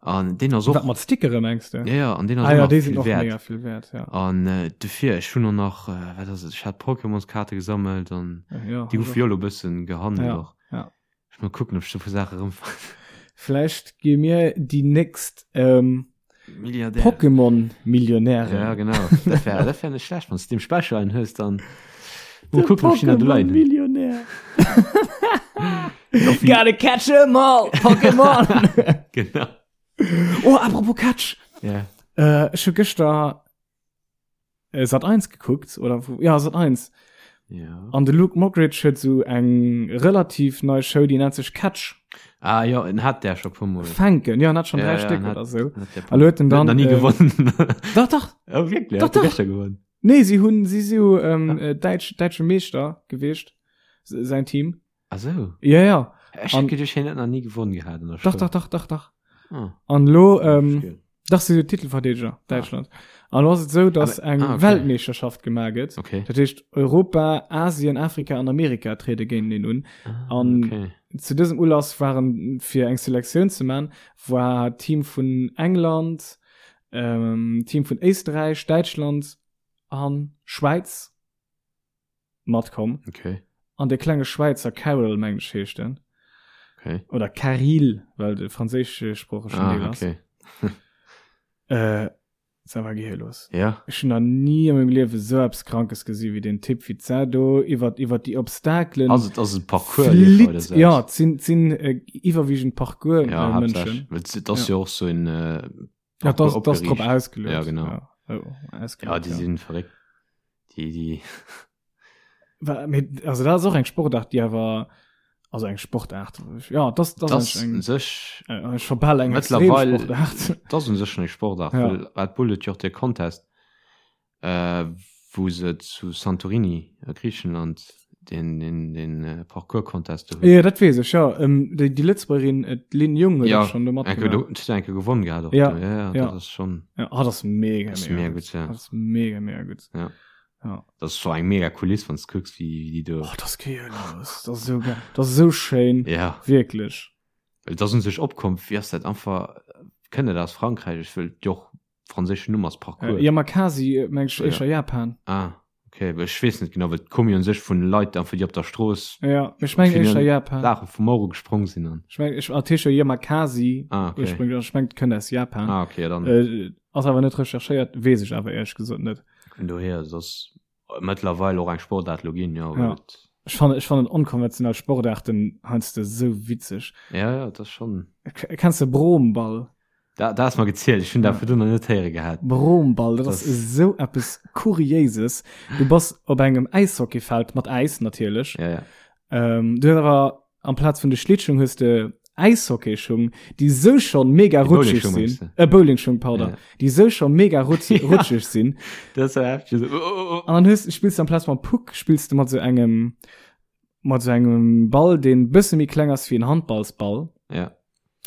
an deen ass och. Wat mat Stickere mengs de? Ja, ja, an deen ass Ah och ja, nach déi sinn vill och wäert. mega vill wäert, ja. An äh, dofir, ech hunn och nach, äh, wat ass et, ech hat Pokémonskaarte gesammelt an Ja, déi ech goufe och. jo elo e bëssen gehandelt Ja, och. ja. Ech mal kucken, ob ech do puer Saache erëmfannen. Vläicht gi mir déi nächst ähm, Milliardär. Pokémon-Millionären. Ja, genau. Dat wär, dat wär net schlecht, wann s du dem Special einen hues, dann mal kucken, ob ich den da leien hunn. Pokémon-Millionär. Gotta catch 'em all, Pokémon! Genau. Oh, apropos Catch. Ja. Äh, ech hu gëschter äh, Sat 1 gekuckt oder ja Sat 1 ja. an de Luke Mockridge huet so eng relativ nei Show die nennt sech Catch ah ja en hat der schon puer Mol Fänken ja hat schon ja, drei ja, Stück hat, oder so an huet den dann nie äh, gewonnen doch doch oh, wirklich doch, doch. gewonnen nee sie hun sie so ähm, ja. äh, deutsch deutsche Meeschter gewicht sein Team Ach so. Ja, ja. Ech hätt geduecht, hien hätt nach ni gewonnen gehat an der Dach, Schoul. dach, dach, dach, dach. Ah. An lo, ähm, Verstehe. dach si Titelverdeedeger, Däitschland. An lo ass et sou, dass Aber- eng ah, okay. Weltmeeschterschaft gemaach gëtt. Okay. Dat heescht, Europa, Asien, Afrika an Amerika triede géinteneen un. Ah, An okay. zu dësem Ulass waren, fir eng Selektioun ze man, war Team vun England, ähm, Team vun Éisträich, Däitschland an Schwäiz. matkomm. Okay. An de klenge Schwäizer Carol, mengen ech heescht en. Okay. Oder Caril, well de franséischsproochegen ah, Deel ass. Okay. äh, dat war gehirlos. Ja. Ech hunn nach ni a mengem Liewe sou eppes Krankes gesi wéi den Typ, wéi d'Sau do iwwer, iwwer déi Obstakelen. Ass et, ass et Parcours? Flitt, ja, et sinn, et sinn äh, iwwerwiegend Parcours ja, äh, Mënschen. Well et ass ja. jo och sou en äh, Ja, das, das drop ausgelöst. Ja, genau. Ja, oh, ausgelöst, ja die ja. sind verréckt. Die, die. Also dat ass och eng Sportart, déi awer also eng Sportart. Ja, das, das, das eng, sech äh, ech verbell eng mittlerweile Sportart. Das un sech eng Sportart. Ja. Well Red Bull huet jo och de Contest äh, wou se zu Santorini a Griichenland den, den, den äh, Parcours-Contest do hunn. Ja, dat weess ech, ja. Ähm, déi, déi Lëtzebuergerin, äh, d'Lynn Jung huet Ja, och schon do Enke, matgemaach. do, huet enke gewonnen gehat och. Ja, do. ja, ja, ja. dat ass schon Ja, ah, dat ass mega, das ist mega mega gutt. gut, ja. Dat ass mega, mega gutt. Ja. Ja. Das ist so eng mega Kuliss, wann du kucks, wie, wie die do. Oh, dat ass gehirlos. Dat ass sou geil. Dat ass sou schéin. Ja. Wierklech. Well dat un sech opkomm, wéi ass dat einfach, kënnt dat aus Frankräich? Ech wëll jo och franséischen Numm ass Parcours. Äh, Yamakasi, äh, meng ech, Ja. éischer Japan. Ah, okay, well ech weess net genau, well d'komm jo un sech vun Leit einfach, déi op der Strooss Ja, ech meng Fir éischer den Japan. Saache vum Euro gesprong sinn an. Ech meng, ech, ah, d'heescht jo Yamakasi Ah, okay. ursprünglech, ech meng, d'kënnt aus Japan. Ah, okay, ja, dann Äh, ass awer net recherchéiert, weess ech awer éierlech gesot net. vun dohier, et ass mëttlerweil och eng Sportaart lo ginn, jo, Ja. well et, Ech fannen, ech fannen onkonventionell Sportaarten heiansdo sou witzeg. ja, ja, et ass schonn. K kenns de Broomball? Da, da ass mer gezielt, ech hunn dat virdrun nach net héiere gehat. Broomball, dat ass esou eppes Kuriéises. Du bass op engem Äishockeyfeld, mat Äis natierlech. Ja, ja. Ähm, du hues awer amplaz vun de Schlittschung hues de Äishockeyschung, déi sou schonn mega Déi rutscheg Bowlingschung sinn. mengst du? Äh, Bowlingschung, pardon. Ja. Déi sou scho mega rutz Ja. rutscheg sinn. Dat ass heftig. So, oh, oh, oh. An dann hues, spills du amplaz mam Puck, spills du mat sou engem, mat sou engem Ball, deen bësse méi kleng ass wéi en Handballsball. Ja.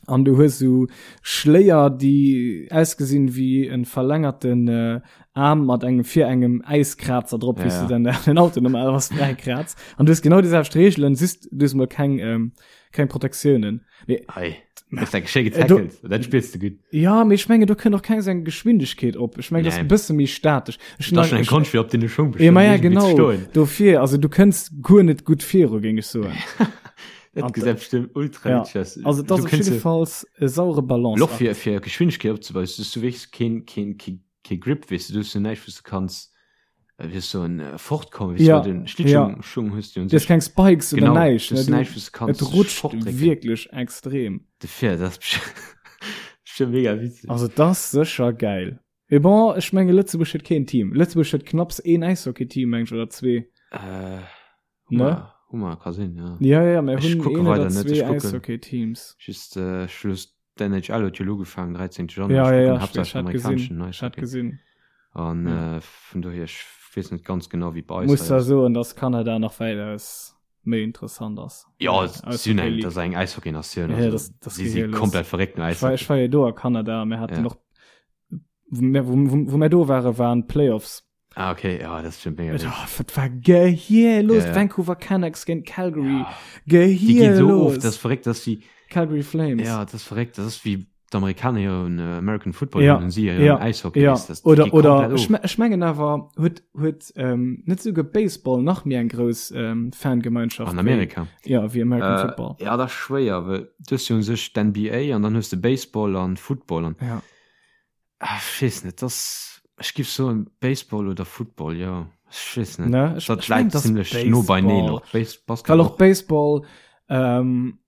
An du hues sou Schléier, déi ausgesinn wéi en verlängerten äh, Aarm mat engem fir engem Äiskrazer drop, wéi Ja. du dann den Auto normalerweis fräi kratz. An du hues genau déi selwecht Reegelen, just du hues mol keng, ähm, keng Protektiounen. Mee, Ei, das ist eng Äh, du- getackelt. Dat spillst du gutt. ja, mee ech mengen, do kënnt och keng seng Geschwindegkeet op. Ech mengen, das Nee. ass e bësse méi statesch. Ech Dat ass schon eng ech- Konscht fir op den Schong Ja, ma ja, irgendwie zu genau. stoen. Dofir, also du kënns guer net gutt viru, géing ech soen. Dat gesäit bestimmt ultra Ja. witzeg aus. Also das Du ass op kënns jidde Falls e saure Balance. Loch fir fir Geschwindegkeet opzebauen, du hues du wierklech keen keen keen kee Grip, weess du, du hues jo näischt wou s du kanns äh, wéi soll en äh, fortkommen, weess du, Ja, well den Schlittschung Schung hues du un Du hues sech. keng Spikes oder Genau, näischt. du Ne? hues Du, näischt wou s du kanns et rutscht fortdrécken. wierklech extrem. Dofir, dat ass bestimmt bestimmt mega witzeg. Also das ass sécher geil. Mee bon, ech menge Lëtzebuerg huet keen Team. Lëtzebuerg huet knapps een Äishockey-Team, meng ech, oder zwee. Äh, Ne? Hummer, Hummer ka sinn, ja. Ja, ja, mir Ech hunn kucke een oder weider net, zwee ech kucken. Äishockey-Teams. Just äh, Schluss d'NHL huet jo elo ugefaangen, 13. Januar. Ja, Ech ja, kucken ja, ech, haaptsächlech ech hat amerikaneschen gesinn. Ech hat Eishockey. gesinn. An Ja. äh, vun dohier, ech weess net ganz genau, wéi bei eis Muss hei da ass. soen, dass Kanada nach wäitaus méi interessant ass. Ja, Äh, si sinn eng, Eishockey-League. dat ass eng Äishockey-Natioun. Ja, Also, das, das si si gehirlos. komplett verréckt no Ich war, Äishockey. ich war jo do a Kanada, mir haten Ja. och, wou mir, wou, wou, wou mir do waren, waren Playoffs. Ah, okay, ja, das ist schon mega. Oh, wat war gehirlos. Ja, ja. Vancouver Canucks géint Calgary. Ja. Die gehen so Gehirlos. oft, das ist verrückt, dass sie, Calgary Flames. ja, das ist verrückt, das ist wie die Amerikaner ihren äh, American Football Ja, hunn und sie ihren ja, Eishockey. Ja, weißt du, das oder geht oder komplett ech, of. me- ech mengen awer huet huet ähm, net souguer Baseball nach méi eng grouss ähm, Fangemeinschaft An wéi- Amerika. ja wéi American Äh, Football. ja, das ist schwéier, well du hast jo un sech d'NBA an dann hues de Baseball an Football an Ja. ah, ech weess net, das ech giff soen Baseball oder Football, jo, ech weess net. Ne? Ech, Dat ech meng, läit das ziemlech no beineen Baseball. och. Base Basketball Well och Baseball ähm,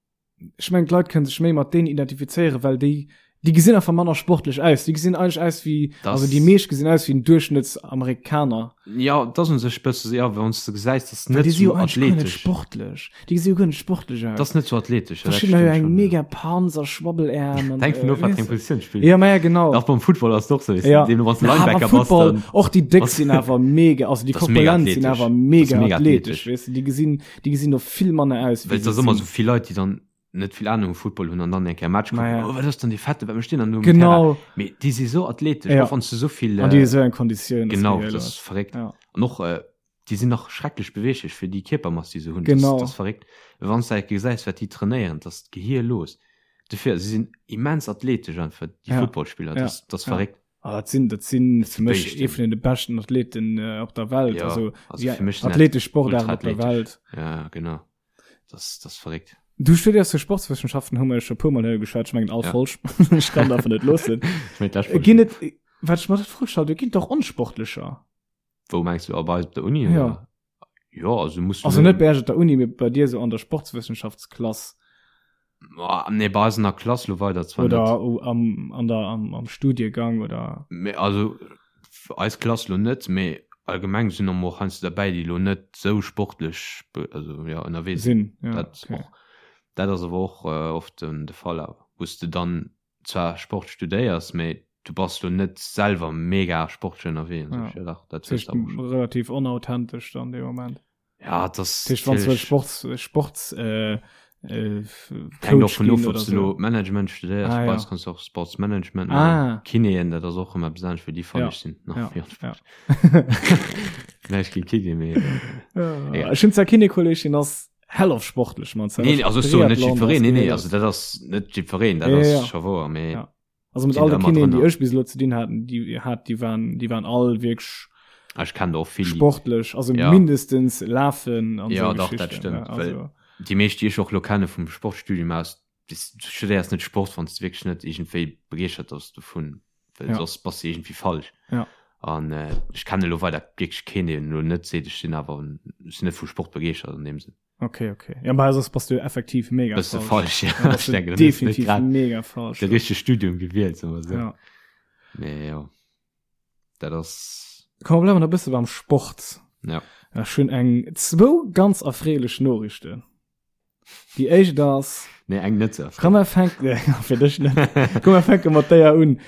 ech meng d'Leit kënnen sech méi mat deenen identifizéieren, well déi déi gesinn einfach manner sportlech aus. Déi gesinn eigentlech aus wéi Das- also déi meescht gesinn aus wéi en Duerchschnëttsamerikaner. Ja, dat ass un sech bësse, ja, wann s de gesäis, dat ass Well net déi si jo sou eigentlech guer net athletesch. sportlech. Déi gesi jo guer net sportlech aus. Dat ass net sou athletesch, ja, dat Verschiddener hu stëmmt eng schon, ja. mega Panzer, Schwabbeläerm an Hänkt vun äh, of, wat weess fir eng de. Positioun spills. Ja, ma ja, genau. Auch beim Football ass et och sou, weess de, Ja. deemno wann s de Na, aber Linebacker bass, Football, dann och déi Déck bass sinn awer mega, also déi Das ass mega Korpulent sinn athletesch. awer Das ass mega mega athletesch, athletesch. weess de, déi gesinn, déi gesinn och vill manner aus, wéi Well et se ass ëmmer sinn. sou vill Leit, déi dann net vill Ahnung vu Football hunn an dann eng Kéier Match kucken, Ma ja. oh, wat ass dann dee Fette, wat mécht deen dann do um Genau. Terrain? Mee déi si sou athletesch, Ja. och wann s du sou vill, An déi hu äh, sou eng Konditioun, das genau, gehéier dat ass los. verréckt. Ja. An och, äh, déi sinn nach schrecklech beweeglech fir déi Kierpermass, déi se hunn. Genau. Dat ass verréckt. Wann s de gesäis, wat déi trainéieren, dat ass d'Gehir los. Dofir, si sinn immens athletesch einfach, déi Ja. Footballspiller, Ja. dat ass, dat ass Ja. verréckt. Ah, dat sinn, dat sinn Dat fir mech Béischten. ee vun de beschten Athleten äh, op der Welt. Ja, also, also ja, fir mech sinn dat athletesch Sportarten op der ultraathletesch. Welt. Ja, genau. Dat ass, dat ass verréckt. Du studéiers jo Sportswëssenschaften, hu mer jo scho puer Mol hei geschwat, ech mengen all Ja. Folg. Ech kann davon net loossen. Ech mengen d'lescht Folg. Ginn et, wat ech mer dat Fro gestallt hu, ginn et och Onsportlecher? Wou mengs du, bei eis op der Uni? Ja. Oder? Ja, also muss Also net bei Iech op der Uni, mee bei dir sou an der Sportswëssenschaftsklass. Ah, nee, bei eis an der Klass lo weider zwar Oder net. am, an der, am, am Studiegang oder. Mee also eis Klass lo net, mee allgemeng sinn och heiansdo derbäi, déi lo net sou sportlech also ja ënnerwee sinn. Sinn, ja, Dat okay. och, dat ass awer och äh, oft den, de Fall awer, wou s de dann zwar Sport studéiers, mee du bass lo net selwer mega sportlech ënnerwee an Ja. sech. Ja, dach, dat Das hues heescht, de awer schon. relativ unauthentesch dann dee Moment. Ja, das Das heescht, wann du Sports, Sports, äh, äh, Hängt och Coach vun ginn of, ob oder du so. lo Management studéiers, Ah, bei ja. eis kanns du och Sportsmanagement maachen. Ah. Kinéen, dat ass och ëmmer eppes anescht, wéi déi fannen Ja. ech sinn nach Ja. méi Ja. Näischt géint Kiné, mee Ja. Egal. Ech hunn zwar Kinékolleg, deen ass hell of sportlech, man. Nee, nee, also ech soen net jiddwereen, nee, nee, also dat ass net jiddwereen, dat Ja, ass ja. scho wouer, mee Ja. Also mit sinn all da de ëmmer Kinéen, déi drënner. ech bis elo ze dinn haten, déi hat, déi waren, déi waren all wierklech Ah, ech kennen der och vill, déi sportlech, also Ja. mindestens lafen an Ja, sou dach, dat Geschichten, stëmmt, ne, well also. déi meescht, déi ech och elo kenne vum Sportstudium aus, du studéiers net Sport, wann s de wierklech net iergendwéi begeeschtert ass dovun, well Ja. soss bass de iergendwéi falsch. Ja. An äh, ech kenne elo weider wierklech keen, deen elo net seet, ech sinn awer ech sinn net vu Sport begeeschtert an deem Sënn. Okay, okay. Ja, bei soss bass du effektiv mega Bass du falsch. falsch, ja. Ja, bass Ech du denken, dann hues du net definitiv grad mega falsch. de richtege Studium gewielt, soe mer esou. Ja. Mee jo, dat ass. Komm, mer bleiwen nach e bësse beim Sport. Ja. Ech hunn eng zwou ganz erfreelech Noriichten. Déi éischt ass. Nee, eng net sou Komm, mer fänken, nee, fir dech net. Komm, mer fänke mat déier un.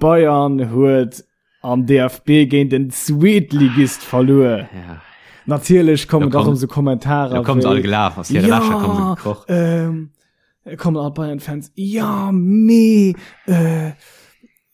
Bayern huet am DFB géint den Zweetligist verluer. Ja. Natierlech kommen Da da komm- rëm sou Kommentarer Da kommen se all wéi, gelaf, aus hire Ja, Lächer kommen se gekroch. ähm, Kommen all Bayern-Fans, ja, mee, äh,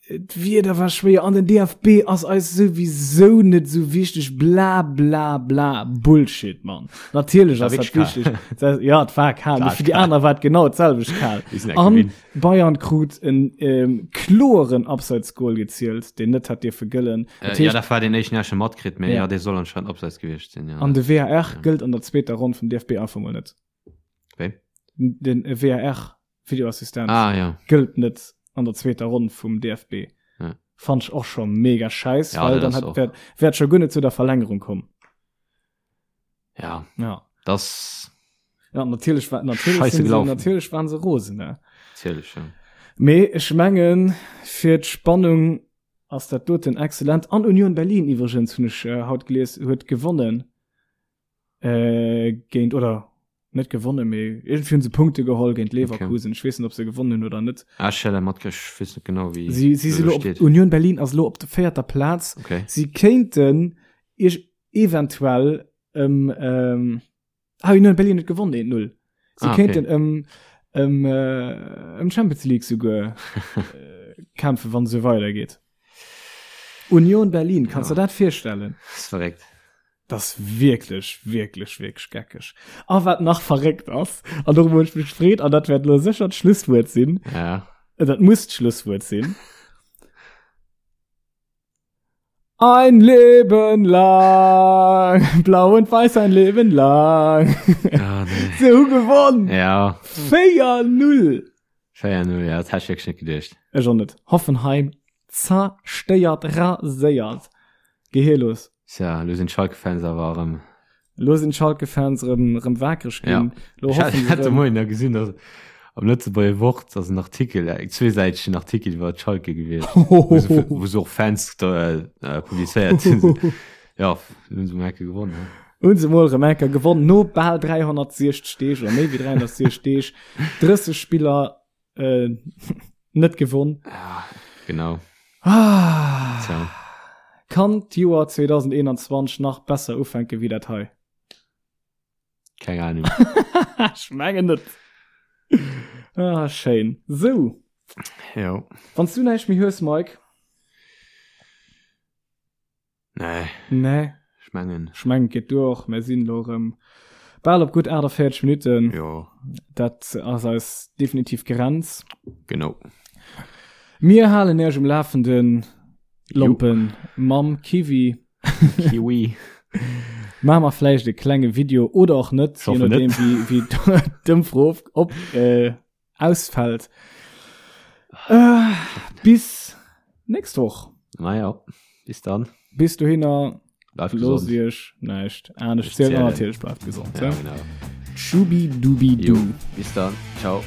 d'Wieder war schwéier an den DFB ass eis souwisou net sou wichteg, bla bla bla. Bullshit, Mann. Natierlech ass dat wichteg. Ja, et war kal, mee fir déi aner war et genau d'selwecht kal. An Bayern krut en ähm, kloeren Abseitsgoal gezielt, deen net hätt dierfe gëllen. Äh, ja, dat war deen éischten, deen ech matkritt, mee ja, dee soll anscheinend Abseits gewiescht sinn, ja. An de VAR ja. gëllt an der zweeter Ronn vum DFB einfach mol net. Wéi? Den VAR, Videoassistent, ah, ja. gëllt net an der zweeter Ronn vum DFB. Ja. Fand ich och scho mega scheiß, ja, well dann hat, wär, wär scho guer net zu der Verlängerung komm. Ja. Ja. Das ja, natierlech war natierlech Scheiße sinn se, gelaufen. natierlech waren se rosen ne? Natierlech, ja. Mee ech mengen fir d'Spannung ass dat doten exzellent. An Union Berlin iwwregens hunn ech äh, haut gelies huet gewonnen äh, géint oder net gewonnen mee irgendwie hunn se Punkte geholl géint Leverkusen. Okay. Ech weess net ob se gewonnen hunn oder net. Ah, ech hat matkritt, ech weess net genau wéi Si si si lo op, Union Berlin ass lo op der véierter Plaz. Okay. Si kéinten iech eventuell ëm ähm, ah, Union Berlin huet gewonnen 1-0. Si Ah, okay. kéinten ëm ëm äh, ëm Champions League souguer äh, kämpfen, wann se weidergeet. Union Berlin, kannst Ja. du dat virstellen? Das ist verréckt. Das ist wirklich, wirklich, wirklich geckeg. A wat nach verréckt ass, an dorüber hunn ech mech gefreet, an dat wäert lo sécher d'Schlusswuert sinn, Ja. äh, dat muss d'Schlusswuert sinn. Ein Leben lang, blau und weiß ein Leben lang. Ah, nee. Se hu gewonnen. Ja, 4-0. 4-0, ja, dat hätt ech wierklech net geduecht. Ech och net. Hoffenheim zerstéiert, raséiert. Gehirlos. Tja, elo sinn d'Schalke-Fans awer erëm Lo sinn d'Schalke-Fans erëm, erëm wakereg ginn. Ja. Lo Ech hat, hoffen se hat de erëm. Moien da gesinn, dass am Lëtzebuerger Wort ass en Artikel, eng zweesäitegen Artikel iwwer Schalke gewiescht, wou se, wou se och Fans da, äh, publizéiert hunn. Ja, hunn se mol enke gewonnen. He? Hunn se mol erëm enke gewonnen, no bal 360 Deeg oder méi wéi 360 Deeg, 30 Spiller äh, net gewonn. Ja, genau. Ah. Tja. Kann d'Joer 2021 nach besser ufänke wéi dat hei? Keng Ahnung. Ech mengen net. Ah, schéin. Sou. Jo. Wann s du näischt méi hues, Mike. Nee. Nee. Ech mengen. Ech mengen, et geet duer och. Mir sinn elo erëm bal op gutt 48 Minutten. Jo. Dat ass eis definitiv Grenz. Genau. Mir halen Iech um Lafenden, Lompen, mam Kiwi. Kiwi. Maache mer vläicht e klenge Video oder och net, Ich hoffe je nodeem net. wéi, wéi d'Ëmfro op, äh, ausfällt. Äh, bis nächst Woch. Naja, bis dann. Bis dohinner. Bleift Loosst gesond. iech näischt anescht Nicht zielen. zählen. Natierlech bleift gesond. Ja, Ja. genau. Schubi-dubi-du. Jo, bis dann. Ciao.